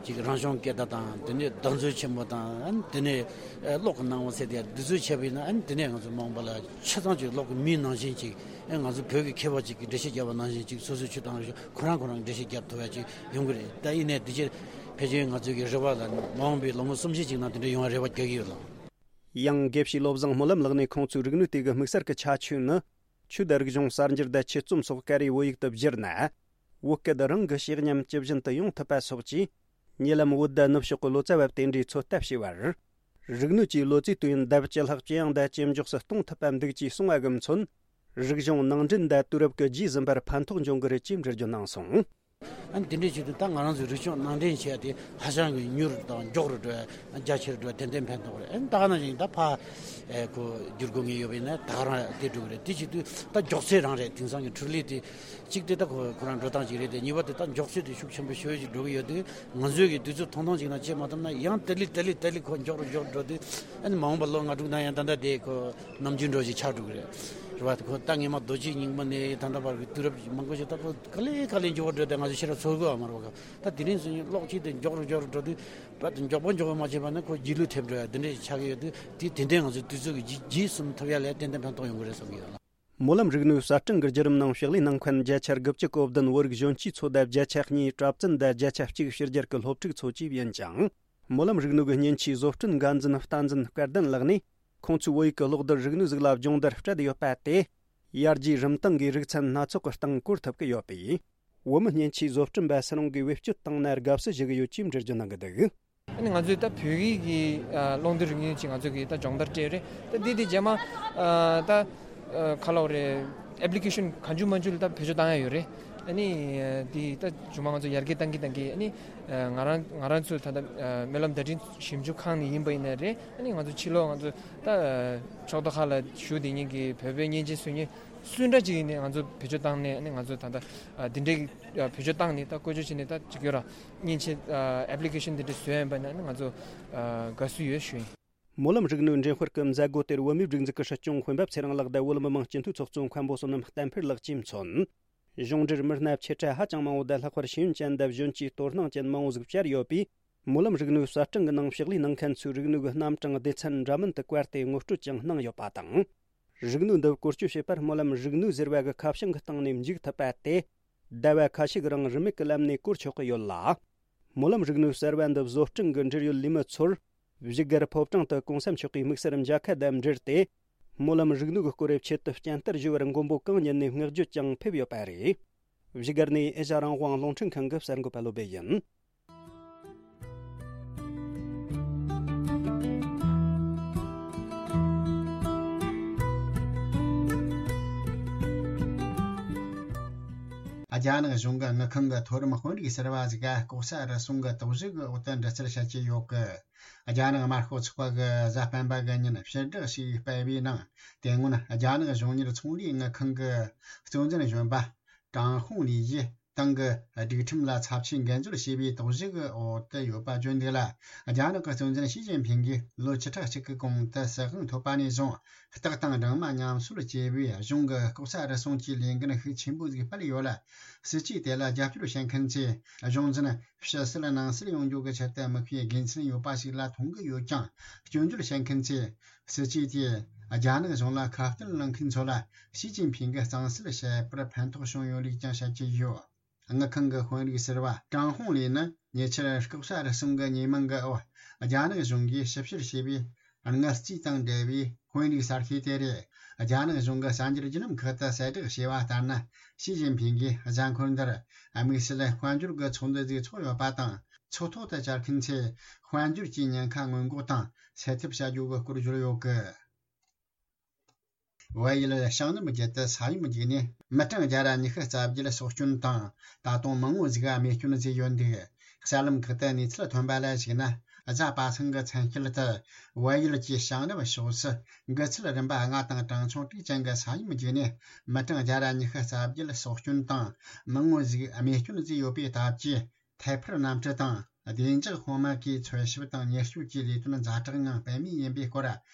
ཅིག་རང་བྱུང་སྐད་བརྡ་དང་དེ་ནས་བརྡ་མཛོད་ཆེན་མོ་དང་། ཨ་ནི་དེ་ནས་ཨ་གློག་གི་སྣང་བ་ཟེར་དེ་འདི་ཚོ་བྱས་པ་ཡིན་ན། ཨ་ནི་དེ་ནས་ང་ཚོ་མ་འོངས་པ་ལ་ཆ་ཚང་ཅིག་གློག་གི་མིའི་ནང་བཞིན་ཅིག། ཨ་ང་ཚོ་བོད་ཀྱི་མཁས་པ་ཅིག་གིས་འགྲེལ་བཤད་བརྒྱབ་པ་ནང་བཞིན་ཅིག་སོ་སོའི་ཆོས་དང་རིག་གཞུང་ཁོ་རང་ཁོ་རང་འགྲེལ་བཤད་བརྒྱབ་ཐུབ་ཡ་ཅིག་ཡོང་གི་རེད། ད་ཡིན་ནའི་འདི་ཕྱིར་ཕལ་ཆེར་ང་ཚོའི་གི་རེ་བ་ལ་མ་འོངས་པའི་ལོ་ངོ་སུམ་ཅུ་ཅིག་ནང་དེ་འདྲ་ཡོང་བའི་རེ་བ་རྒྱག་གི་ཡོད་ལགས། ཡང་དགེ་བཤེས་བློ་བཟང་སྨོན་ལམ་ལགས་ནས་ཁོང་ཚོའི་རིག་ནུས་དེ་གི་དམིགས་བསལ་གྱི་ཁྱད་ཆོས་ནི། ཆོས་དང་རིག་གཞུང་གསར་འགྱུར་དང་ཆོས་རྩོམ་སོགས་ཀ་རེ་བོད་ཡིག་ཏུ་བསྒྱུར་ན། བོད་སྐད་རང་གི་ཤེས་ཉམས་ཇི་བཞིན་དུ་ཡོང་ཐུབ་པ་སོགས་ཀྱིས། ཉེ་ལམ་བོད་ཟླ་ནུབ་ཕྱོགས་ཀྱི་ལོ་ཙཱ་བ་དེ་འདྲའི་ཚོད་ལྟ་བྱས་པར། རིག་ནུས་ཀྱིས་ལོ་ཙཱའི་དུས་ཡུན་ལྡབ་བཅུ་ལྷག་ཇེ་ཡང་དང་ཇེ་མགྱོགས་སུ་གཏོང་ཐུབ་པ་འདུག་ཅེས་གསུངས་པ་གི་མཚོན། རིག་གཞུང་ནང་འདྲེན་དང་དུས་རབས་ཀྱི་རྗེས་ཟིན་པར་ཕན་ཐོགས་འབྱུང་གི་རེད་ཅེས་འགྲེལ་བརྗོད་གནང་སོང་། ཨ་ནི་དེ་འདྲའི་ཆེད་དུ་ད་ང་རང་ཚོའི་རིག་གཞུང་ནང་འདྲེན་བྱས་ཏེ་ཧ་ཅང་གི་མྱུར་དང་མགྱོགས་རུ་འགྲོ་བ། རྒྱ་ཆེར་འགྲོ་བ་ཏན་ཏན་ཕན་ཐོགས་རེད། ཨ་ནི་ད་ག་ནང་བཞིན་ད་ཕ་ཨེ་ཁོ་བསྒྱུར་དགོས་ངེས་ཡོད་པ་ཡིན་ན་ད་ག་རང་དེ་འགྲོ་གི་རེད། དེ་བྱེད་དུས་ད་མགྱོགས་ཚད་རང་རེད། དེང་སང་གི་འཕྲུལ་ལས་དེ་གཅིག་དེ་ད་ཁོ་ཁོ་རང་འགྲོ་སྟངས་གཅིག་རེད་དེ། གཉིས་པ་དེ་ད་མགྱོགས་ཚད་དེ་ཤུགས་ཆེན་པོ་ཞེ་པོ་ཅིག་འགྲོ་གི་ཡོད་དུས། ང་ཚོས་ཀྱི་དུས་ཚོད་ཐུང་ཐུང་ཅིག་ནང་བྱེད་མ་ཐུབ་ན་ཡང་དེ་ལས་དེ་ལས་དེ་ལས་ཁོ་མགྱོགས་རུ་མགྱོགས་རུ་འགྲོ་དུས། ཨ་ནི་མ་འོངས་པ་ལོ་ལྔ་དྲུག་ནང་ཡང་ད་ལྟ་དེ་ཁོ་ནམ་རྒྱུན་འགྲོ་ཞིག་ཆགས་འགྲོ་གི་རེད། རེད་བ། ཁོ་ད་སྔས་མ་རྡོ་རྗེ་རྙིང་མ་ནས་ད་ལྟ་བར་གྱི་དུས་རབས་མང་པོ་ཞིག་ད་ཁོ་ག་ལེ་ག་ལེ་མགྱོགས་པོ་འགྲོ་དེ་ང་ཚོ་ཤེས་རབ་ཚོར་དགོས་པ་མ་རེད་བ། ད་དེ་རིང་སང་ཉིན་གློག་ཆེན་དེ་མགྱོགས་རུ་མགྱོགས་རུ་འགྲོ་དུས་ད་དེ་མགྱོགས་པོ་མགྱོགས་པོ་མ་བྱས་པ་ན་ཁོ་རྗེས་ལུས་ཐེབས་འགྲོ་ཡ་དེ་འདྲ་ཞིག་ཆགས་ཀྱི་ཡོད་དུས། དེ་དེ་འདྲའི་ང་ཚོའི་དུས་ཚོད་ཀྱི་རྗེས་རྗེས་ཟིན་ཐུབ་ཡ་ལ་ཏན་ཏན་ཕན་ཐོགས་ཡོང་གི་རེད་བསམ་གྱི་ཡོད་ལ། སྨོན་ལམ་རིག་ནུས་གསར་སྐྲུན་གྱི་བརྒྱུད་རིམ་ནང་ཕྱག་ལས་གནང་མཁན་བརྒྱ་ཆ་དགུ་བཅུ་གོ་བདུན་བོད་རིགས་གཞོན་སྐྱེས་ཚོ་དང་བརྒྱ་ཆ་གཉིས་གྲྭ་བཙུན་དང་བརྒྱ་ཆ་གཅིག་ཕྱི་རྒྱལ་གྱི་སློབ་ཕྲུག་ཚོ་བཅས་ཡིན་ཅིང་། སྨོན་ལམ་རིག་ནུས་ཀྱི་མཉེན་ཆས་བཟོ་སྐྲུན་འགན་འཛིན་བསྟན་འཛིན་སྐལ་ལྡན་ལགས་ནས། ཁོང་ཚོའི་བོད་ཡིག་གི་གློག་རྡུལ་རིག་ནུས་ཟིག་ལ་སྦྱོང་བརྡར་སྤྲད་ཡོད་པ་དེ། ཡར་རྒྱས་རིམ་སྟངས་ཀྱི་རིག་ཚན་སྣ་ཚོགས་ཀྱི་སྟེང་བཀོལ་ཐུབ་ཀྱི་ཡོད་པས། བོད་མི་མཉེན་ཆས་བཟོ་སྐྲུན་པ་སུ་རུང་གིས་བེད་སྤྱོད་བཏང་ན་དགའ་བསུ་ཞུ་གི་ཡོད་ཅེས་འགྲེལ་བརྗོད་གནང་གི་འདུག། ཨ་ནི་ང་ཚོས་ད་བོད་ཡིག་གི་ཨ་གློག་རྡུལ་རིག་ནུས་ཅིག་ང་ཚོ་གིས་ད་སྦྱོང་བརྡར་སྤྲད་ཡོད་རེད། ད་འདི་དེ་རྗེས་མ་ཨ་ད་ཨ་ཁ་ལོག་རེད། ཨེབ་ལི་ཀེ་ཤན་གང་བྱུང་མང་བྱུང་ལ་ད་བེད་སྤྱོད་བཏང་ཡ་ཡོད་རེད། ཨ་ནི་ཨ་འདི་ད་མཇུག་མ་ང་ཚོ་ཡར་རྒྱས་བཏང་གི་བཏང་གི། ཨ་ནི་ཨ་ང་རང་ང་རང་ཚོ་ད་ལྟ་ཨ་སྨོན་ལམ་བརྡ་འཕྲིན་ཞིབ་འཇུག་ཁང་ནས་ཡིན་པ་ཡིན་ན་རེད། ཨ་ནི་ང་ཚོ་ཕྱི་ལོགས་ང་ཚོ་ད་ཨ་ཕྱོགས་མཐའ་ཁག་ལ་བཞུགས་བསྡད་མཁན་གྱི་བོད་པའི་སྙན་ཆེན་སུ་ཉིད་སུ་འདྲ་ཅིག་ཡིན་ནའི་ང་ཚོ་བེད་སྤྱོད་བཏང་ནས། ཨ་ནི་ང་ཚོ་ད་ལྟ་ཨ་འདི་འདྲའི་ཨ་བེད་སྤྱོད་བཏང་ནས་ད་བཀོལ་སྤྱོད་བྱས་ནས་ད་ཅིག་ཡོད་ར། མཉེན་ཆས་ཨ་ཨེབ་ལི་ཀེ་ཤན་འདི་འདྲ་བཟོས་ཡིན་པ་ན་ང་ཚོ་ཨ་དགའ་བསུ་ཡོད་ཞུ་ཡིན། སྨོན་ལམ་རིག་ནུས་འགྲེམས་སྤེལ་གྱི་མཛད་སྒོ་དེར་བོད་མིའི་སྒྲིག་འཛུགས་ཀྱི་སྲིད་སྐྱོང་འོས་འབབ་ཚེ་རིང་ལགས་དང་བོད་མི་མང་སྤྱི་འཐུས་ཚོགས་གཙོ་མཁན་པོ་བསོད་ནམས་བསྟན་འཕེལ་ལགས་ཀྱིས་མཚོན། གཞུང་འབྲེལ་མི་སྣ་ཆེ་ཕྲ་ཧ་ཅང་མང་བོ་དང་། ལྷག་པར་ཤེས་ཡོན་ཅན་དང་གཞོན་སྐྱེས་དོ་སྣང་ཅན་མང་བོ་ཟིག་བཅར་ཡོད་པས། སྨོན་ལམ་རིག་ནུས་གསར་སྐྲུན་གྱི་ནང་ཕྱག་ལས་གནང་མཁན་ཚོའི་རིག་ནུས་ཀྱི་རྣམ་གྲངས་སྡེ་ཚན་འདྲ་མིན་དུ་བཀར་ཏེ་ངོ་སྤྲོད་ཀྱང་གནང་ཡོད་པ་དང་། རིག་ནུས་འདི་བཀོལ་སྤྱོད་བྱེད་པར་སྨོན་ལམ་རིག་ནུས་ཟེར་བ་གི་ཁ་བྱང་གི་སྟེང་ནས་འཇུག་ཐུབ་པ་དེ། ཟླ་བ་ཁ་ཤས་ཀྱི་རིང་རིན་མེད་ཀྱི་ལམ་ནས་བཀོལ་ཆོག་གི་ཡོད་ལ། སྨོན་ལམ་རིག་ནུས་གསར་བ་འདི་བཟོ་སྐྲུན་གྱི་འབྲེལ་ཡོད་ལས་མི་ཚོར། བཞུགས་སྒར་ཕོ་བྲང་དུ་གོང་ས་མཆོག་གིས་དམིགས་བསལ་མཇལ་ཁ་དང་འབྲེལ་ཏེ། སྨོན་ལམ་རིག་ནུས་ཀྱི་སྐོར་རེ་ཆེད་དུ་སྤྱན་བསྟར་ཞུ་བར་མགོན་པོ་གང་ཉིད་ནས་བསྔགས་བརྗོད་ཀྱང་ཕེབས་ཡོད་པ་རེད། བཞུགས་སྒར་ནས་ཨེ་ཤ་རང་དབང་རླུང་འཕྲིན་ཁང་གི་གསར་འགོད་པ་བློ་བྷེ་ཡིན། རྒྱ་ནག་གཞུང་གི་དངུལ་ཁང་གི་མཐོ་རིམ་དཔོན་རིགས་ཟུར་པ་ཟིག་ག་ལྐོག་ཟ་རུལ་སུངས་ཀྱི་དོགས་གཞི་གི་འོག་ཏུ་འདྲི་རྩད་བྱེད་ཀྱི་ཡོད་གི། རྒྱ་ནག་དམར་ཤོག་ཚོགས་པ་གི་གཟའ་སྤེན་པ་གི་ཉིན་ཕྱིར་བསྒྲགས་ཤིག་སྤེལ་བའི་ནང་། དེ་སྔོན་རྒྱ་ནག་གཞུང་གཉེར་ཚོང་ལས་དངུལ་ཁང་གི་གཙོ་འཛིན་གཞོན་པ་ཀྲང་ཧུང་ལི་ཡིས། ཏང་གི་སྒྲིག་ཁྲིམས་ལ་ཚབས་ཆེའི་འགན་འཛོལ་བྱས་པའི་དོགས་གཞི་གི་འོག་ཏུ་ཡོད་པ་བརྗོད་འདུག་ལ། རྒྱ་ནག་གི་གཙོ་འཛིན་ཞི་ཅིན་ཕིང་གིས་ལོ་བཅུ་ཕྲག་གཅིག་གི་གོང་དུ་སྲིད་དབང་ཐོབ་པ་ནས་བཟུང་། སྟག་དང་སྦྲང་མ་མཉམ་གསོད་ཅེས་པའི་གཞུང་གི་ལྐོག་ཟ་རུལ་སུངས་ཀྱི་ལས་འགན་ཤུགས་ཆེན་པོ་ཟིག་སྤེལ་ཡོད་ལ། སྲིད་ཇུས་དེ་ལ་རྒྱབ་སྐྱོར་བྱེད་མཁན་ཚོས་གཞུང་འཛིན་ཕྱི་བསད་ནང་བསད་ཡོང་རྒྱུ་གི་ཆེད་དུ་དམིགས་པའི་དགེ་མཚན་ཡོད་པ་ཞིག་ལ་མཐོང་གི་ཡོད་ཀྱང་། སྐྱོན་བརྗོད་བྱེད་མཁན་ཚོས་སྲིད་ཇུས་དེས་རྒྱ་ནག་གཞུང་ལ་ཁ་གཏད་གནང་མཁན་ཚོ་ལ་ཞི་ཅིན་ཕིང་གིས་གཙང་སེལ་བྱེད་པར་ཕན་ཐོགས་བྱུང་ཡོད་ལུགས་ཀྱང་བཤད་ཀྱི་ཡོད། དངུལ་ཁང་གི་དཔོན་རིགས་ཟུར་པ་ཀྲང་ཧུང་ལིས་ནི་ཉེ་ཆར་ལྐོག་ཟ་རུལ་སུངས་ཀྱི་ཉེས་མིང་གི་འོག་རྒྱ་ནག་གཞུང་གིས་ཞིབ་བཤེར་བྱས་པའི་དངུལ་རྩིས་དང་འབྲེལ་བའི་དཔོན་རིགས་གསར་ཤོས་དེ་རེད། རྒྱ་ནག་གཞུང་གི་གསར་འགྱུར་བརྒྱུད་ལམ་ཁག་ཏུ་གསལ་བསྒྲགས་བྱས་པ་ལྟར་ན། ཞི་ཅིན་ཕིང་གིས་གཟའ་འཁོར་འདིར་དམིགས་བསལ་དཔལ་འབྱོར་གྱི་ཚོགས་འདུ་ཟིག་ཚོགས་ཡོད་པ་དང་། ཚོགས་ཐོག་ཏུ་བཅར་མཁན་ཚོས་དཔལ་འབྱོར་གྱི་ཉེན་ཁ་སྔོན་འགོག་དང་སེལ་ཐབས་བྱ་རྒྱུ་གི་སྐོར་བརྗོད་ཡོད་གི། བལ་ཡུལ་ཤང་ནུབ་བརྒྱུད་དུ་ས་ཡོམ་བརྒྱུད་ནས་མི་གྲངས་བརྒྱ་ར་ཉི་ཤུ་རྩ་བརྒྱད་སྲོག་སྐྱོན་དང་། ད་དུང་མང་བོ་ཟིག་རྨས་སྐྱོན་བཟོས་ཡོད་འདུག། གསར་ལམ་ཁག་ཏུ་གནས་ཚུལ་ཐོན་པ་ལ་གཞིགས་ན། གཟའ་པ་སངས་ཀྱི་མཚན་ཤུལ་དུ་བལ་ཡུལ་གྱི་ཤང་ནུབ་ཕྱོགས་སུ་འགག་ཚུལ་རིམ་པ་ལྔ་དང་གྲངས་ཆུང་དྲུག་ཅན་གྱི་ས་ཡོམ་བརྒྱུད་ནས་མི་གྲངས་བརྒྱ་ར་ཉི་ཤུ་རྩ་བརྒྱད་སྲོག་སྐྱོན་དང་། མང་བོ་ཟིག་རྨས་སྐྱོན་བཟོས་ཡོད་པའི་སྟབས་ཀྱིས། ཐད་འཕུར་གནམ་གྲུ་དང་བདེ་འཇགས་དཔུང་དམག་གིས་འཚོལ་ཞིབ་དང་ཉེན་བཅོལ་གྱི་ལས་དོན་ཛ་དྲག་ངང་སྤེལ་མུས་ཡིན་པའི་སྐོར།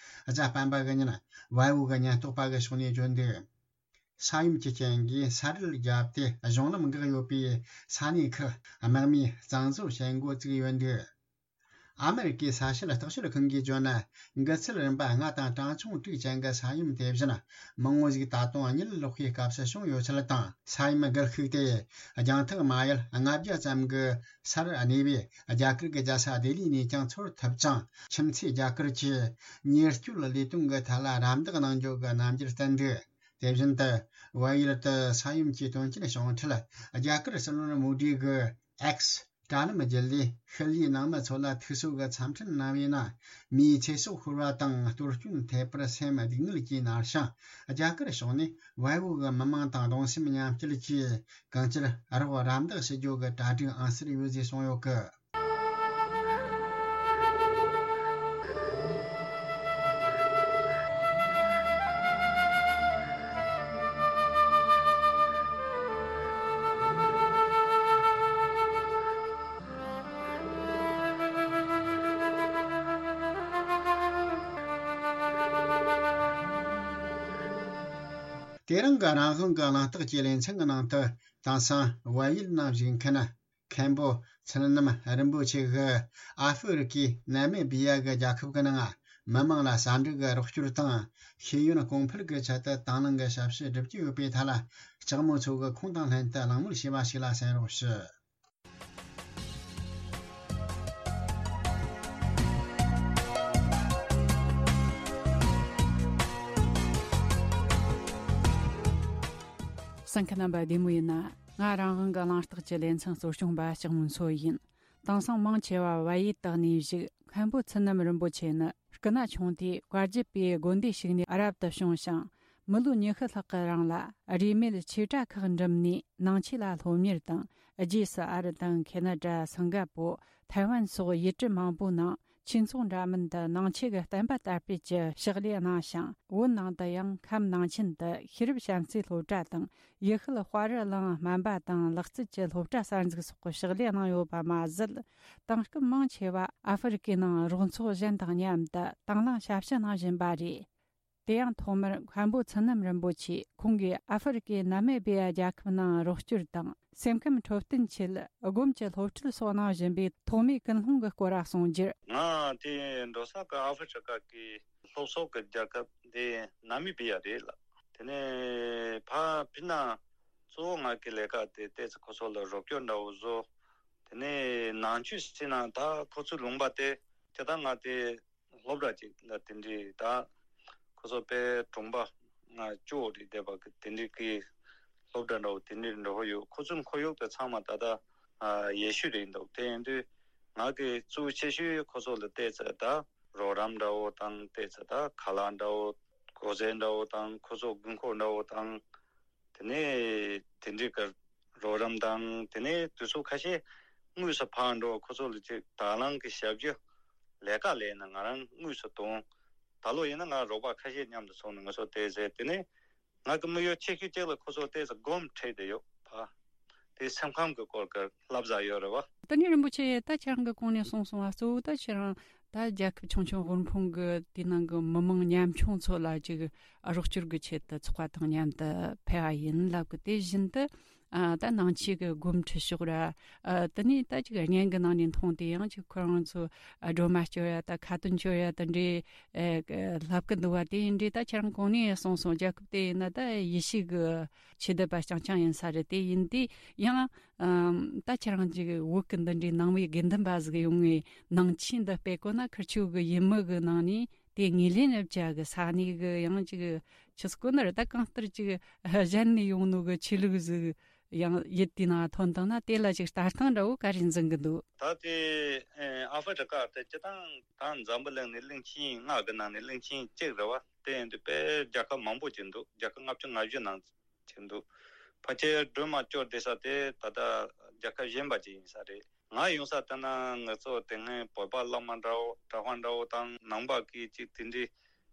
གཟའ་སྤེན་པ་གི་ཉིན་བལ་པོ་གི་ཉེན་རྟོག་པ་གི་ཕྱོགས་ནས་བརྗོད་འདུག། ས་ཡོམ་གྱི་རྐྱེན་གྱིས་ས་རུད་བརྒྱབ་སྟེ་གཞུང་ལམ་འགག་ཡོད་པའི་ས་གནས་ཁག་དམག་མིས་གཙང་བཟོ་བྱེད་འགོ་བཙུགས་ཡོད་འདུག། ཨ་མེ་རི་ཀའི་ས་བྱད་བརྟག་དཔྱད་ཁང་གིས་བརྗོད་ན། འགག་ཚུལ་རིམ་པ་ལྔ་དང་གྲངས་ཆུང་དྲུག་ཅན་གྱི་ས་ཡོམ་དེ་བཞིན་མང་བོ་ཞིག་ད་དུང་གཉིད་ལོག་པའི་སྐབས་སུ་བྱུང་ཡོད་ཚུལ་དང་། ས་ཡོམ་གར་ཤུགས་དེ་རྒྱང་ཐག་མ་ཡལ་ལྔ་བརྒྱ་ཙམ་གྱི་སར་གནས་པའི་རྒྱ་གར་གྱི་རྒྱལ་ས་ལྡི་ལི་ནས་ཀྱང་ཚོར་ཐུབ་ཅིང་། ཁྱིམ་མཚེས་རྒྱ་གར་གྱིས་ཉེན་བཅོལ་ལས་དོན་གྱི་ཐད་ལ་རམ་འདེགས་གནང་རྒྱུ་གི་རྣམ་འགྱུར་བསྟན་འདུག། དེ་བཞིན་དུ་བལ་ཡུལ་དུ་ས་ཡོམ་གྱི་དོན་རྐྱེན་བྱུང་འཕྲལ་རྒྱ་གར་སྲིད་བློན་མོ་ཌི་གིས་X དྲ་ལམ་བརྒྱུད་ལས་ཤུལ་ལུས་ནང་མི་ཚོ་ལ་ཐུགས་གསོ་གི་འཚམས་འཕྲིན་གནང་བའི་ནང་། མིའི་ཚེ་སྲོག་ཤོར་བ་དང་གཏོར་སྐྱོན་ཐེབས་པར་སེམས་སྡུག་བསྔལ་གྱིས་མནར་ཞིང་། རྒྱ་གར་ཕྱོགས་ནས་བལ་པོ་གི་མི་མང་དང་གདུང་སེམས་མཉམ་སྐྱེད་ཀྱིས་གང་ཅིར་རོགས་རམ་འདེགས་ཞུ་རྒྱུ་གི་གྲ་སྒྲིག་ཨང་གསར་ཡོད་ཅེས་གསུངས་ཡོད་གི། དེ་རིང་གི་རང་དབང་གི་གླེང་སྟེགས་ཀྱི་ལེ་ཚན་གྱི་ནང་དུ། དེང་སང་བལ་ཡུལ་ནང་བཞུགས་མཁན་མཁན་པོ་ཚུལ་རྣམ་རིན་པོ་ཆེ་གིས་ཨ་ཧྥེ་རི་ཀའི་ནཱ་མི་བི་ཡ་གི་རྒྱལ་ཁབ་ཀྱི་ནང་མི་མང་ལ་ཟ་འབྲུ་གི་རོགས་སྐྱོར་དང་ཤེས་ཡོན་གོང་འཕེལ་གྱི་ཆེད་དུ་དང་བླངས་ཀྱི་ཞབས་ཞུ་བསྒྲུབ་ཀྱི་ཡོད་པའི་ཐད་ལ། ལྕགས་མོ་མཚོ་གིས་ཁོང་དང་ལྷན་དུ་གླེང་མོལ་བྱས་པ་ཞིག་ལ་གསན་རོགས་ཞུ། གསན་མཁན་རྣམ་པ་བདེ་མོ་ཡིན་ན། ང་རང་དབང་གི་གླེང་སྟེགས་ཀྱི་ལེ་ཚན་གཙོ་སྐྱོང་པ་ལྕགས་མོ་མཚོ་ཡིན། དེང་སང་མང་ཆེ་བ་བལ་ཡུལ་དུ་གནས་བཞུགས་མཁན་པོ་ཚུལ་རྣམ་རིན་པོ་ཆེ་ནི། སྐུ་ན་ཆུང་དུས་བཀའ་བརྒྱུད་པའི་དགོན་སྡེ་ཞིག་ནས་རབ་ཏུ་བྱུང་ཞིང་། མི་ལོ་ཉི་ཤུ་ལྷག་གི་རིང་ལ་རིས་མེད་ཆོས་གྲྭ་ཁག་འགྲིམས་ནས་ནང་ཆོས་ལ་སློབ་གཉེར་དང་། རྗེས་སུ་ཨ་རི་དང་ཁེ་ན་ཌ། སིང་ག་པོ། ཐའེ་ཝན་སོགས་ཡུལ་གྲུ་མང་པོའི་ནང་ཆོས་ཚོགས་འདྲ་མིན་དུ་ནང་ཆོས་ཀྱི་བསྟན་པ་དར་སྤེལ་གྱི་ཕྱག་ལས་གནང་ཞིང་། བོད་ནང་དུ་ཡང་ཁམས་ནང་ཆེན་དུ་ཤེས་རབ་བྱམས་བརྩེའི་སློབ་གྲྭ་དང་། ཡུལ་ཤུལ་དཔའ་རི་གླིང་སྨན་པ་དང་ལག་རྩལ་གྱི་སློབ་གྲྭ་གསར་འཛུགས་སོགས་ཀྱི་ཕྱག་ལས་གནང་ཡོད་པ་མ་ཟད། དེང་སྐབས་མང་ཆེ་བ་ཨ་ཧྥེ་རི་ཀའི་ནང་རོགས་ཚོགས་གཞན་དང་མཉམ་དུ་དང་བླངས་ཞབས་ཞུ་གནང་བཞིན་པ་རེད། དེ་ཡང་ཐོག་མར་མཁན་པོ་ཚུལ་རྣམ་རིན་པོ་ཆེས་ཁོང་གིས་ཨ་ཧྥེ་རི་ཀའི་ནཱ་མི་བི་ཡ་རྒྱལ་ཁབ་ནང་རོགས་སྐྱོར་དང་སེམས་ཁམས་འཕྲོད་བསྟེན་ཆེད་སྒོམ་གྱི་སློབ་ཁྲིད་སོགས་གནང་བཞིན་པའི་ཐོག་མའི་ཀུན་སློང་གི་སྐོར་ལ་གསུང་རྒྱུར། ང་དེ་འགྲོ་ས་གི་ཨ་ཧྥེ་རི་ཀ་གི་ལྷོ་ཕྱོགས་ཀྱི་རྒྱལ་ཁབ་དེ་ནཱ་མི་བི་ཡ་རེད་ལ། དེ་ནས་ཕ་ཕི་ན་གཙོ་བོ་ང་གི་ལས་ཀ་དེ་ཏོག་ཙམ་ཁོ་ཚོ་ལ་རོགས་སྐྱོར་འདྲ་བོ་བཟོ། དེ་ནས་ནང་ཆོས་ཟེར་ན་ད་ཁོ་ཚོའི་ལུང་པ་དེ་དེ་ད་ང་དེ་སློབ་གྲྭ་ཅིག་ལ་དེ་འདྲའི་ད་ཁོ་ཚོ་དཔེ་གྲོང་པ་ང་ཅོ་རེད་བསྡད་པ་གི་དེ་འདྲའི་གི་སློབ་གྲྭ་འདྲ་བོ་དེ་འདྲའི་འགྲོ་ཡོད། ཁོ་ཚོའི་ཁོར་ཡུག་དེ་ཚང་མ་ད་ལྟ་ཡེ་ཤུ་རེད་འདུག། དེ་ཡིན་དུས་ང་གི་གཙོ་ཆེ་ཤོས་ཁོ་ཚོ་ལ་བལྟས་ཚེ་ད་རོགས་རམ་འདྲ་བོ་དང་བལྟས་ཚེ་ད་ཁ་ལག་འདྲ་བོ་གོས་རྩེད་འདྲ་བོ་དང་ཁོ་ཚོ་དགོས་མཁོ་འདྲ་བོ་དང་། དེ་ནས་དེ་འདྲའི་གི་རོགས་རམ་དང་། དེ་ནས་དུས་ཚོད་ཁ་ཤས་དངོས་སུ་ཕར་འགྲོ། ཁོ་ཚོ་ལ་ཅིག་དང་བླངས་ཀྱི་ཞབས་ཞུ་ལས་ཀ་ལས་ན་ང་རང་དངོས་སུ་གཏོང་། ད་ལོ་ཡིན་ན་ང་རོགས་པ་ཁ་ཤས་མཉམ་དུ་སོང་ནས་ང་ཚོ་བལྟས་ཚེ། དེ་ནས་ང་གི་དམིགས་ཡུལ་ཆེ་ཤོས་གཅིག་ལ་ཁོ་ཚོ་བལྟས་ཚེ་སྒོམ་ཁྲིད་དེ་ཡོད་ཕ། དེ་སེམས་ཁམས་ཀྱི་སྐོར་གྱི་བསླབ་བྱ་ཡོད་རེད་བ། དེ་ནས་རིན་པོ་ཆེ་ད་ཁྱེད་རང་གི་གོང་ནས་གསུངས་སོང་བ། གཙོ་བོ་ད་ཁྱེད་རང་ད་རྒྱལ་ཁབ་ཆུང་ཆུང་དབུལ་ཕོངས་ཀྱི་དེའི་ནང་གི་མི་མང་ཉམ་ཆུང་ཚོ་ལ་ཅིག་རོགས་སྐྱོར་གྱི་ཆེད་དུ་ཚོགས་པ་དང་མཉམ་དུ་ཕེབས་པ་ཡིན་ལབ་གི། དེ་བཞིན་དུ་ཨ་ད་ནང་ཆོས་ཀྱི་སྒོམ་ཁྲིད་ཕྱོགས་ར། ཨ་དེ་ནས་ད་ཅིག་བརྙན་གྱི་ནང་ནས་མཐོང་དེ་ཡང་ཅིག་ཁོ་རང་ཚོ་ཨ་སྒྲོལ་མ་སྐྱོར་ཡ་ད་ཁ་ཏོན་སྐྱོར་ཡ་ད་འདྲའི་ཨེ་ལབ་གི་འདུག་བ། དེ་ཡིན་འདྲའི་ད་ཁྱེད་རང་གོང་ནས་གསུངས་སོང་། རྒྱལ་ཁབ་དེ་ཡིན་ན་ད་ཡེ་ཤུ་གི་ཆོས་དད་པ་རྐྱང་རྐྱང་ཡིན་ས་རེད། དེ་ཡིན་དུས་ཡང་ཨམ་ད་ཁྱེད་རང་ཅིག་བོད་ཀྱི་འདི་འདྲའི་ནང་པའི་དགེ་འདུན་པ་ཟིག་ཡོང་ངས་ནང་ཆོས་འདི་སྤེལ་དགོས་ན་ཁིར་ཆོ་གི་ཡུལ་མི་གི་ནང་ནས་དེ་ངོས་ལེན་རབ་བྱ་གི་ས་གནས་གི་ཡང་ཅིག་ཆི་སྐོ་ནར་ད་གང་ལྟར་ཅིག་གཞན་ནས་ཡོང་ནོ་གི་ཆོས་ལུགས་ཟིག་ཡང་ཡིད་དེའི་ནང་ཐོན་བཏང་ན་དེ་ལ་ཅིག་ལྟ་སྟངས་འདྲ་བོ་ག་རེ་འཛིན་གི་འདུག་ད་དེ་ཨ་ཧྥེ་རི་ཀ་དེ་སྤྱི་བཏང་ད་འཛམ་བུ་གླིང་ནས་གླིང་ཆེན་ལྔ་གི་ནང་ནས་གླིང་ཆེན་གཅིག་རེད་བ། དེ་ཡིན་དུས་དཔེ་རྒྱལ་ཁབ་མང་པོ་ཅིག་འདུག་རྒྱལ་ཁབ་ལྔ་བཅུ་ང་བཞི་ནང་ཅིག་འདུག་ཕལ་ཆེར་སྒྲོལ་མ་སྐྱོར་བསྡད་ས་དེ་ད་ལྟ་རྒྱལ་ཁབ་གཞན་པ་ཅིག་ཡིན་ས་རེད། ང་ཡོང་ས་ལྟ་ན་ང་ཚོ་དེ་སྔའི་བོད་པ་བླ་མ་འདྲ་བོ་གྲྭ་པ་འདྲ་བོ་དང་ནང་པ་གི་ཅིག་དེ་འདྲའི་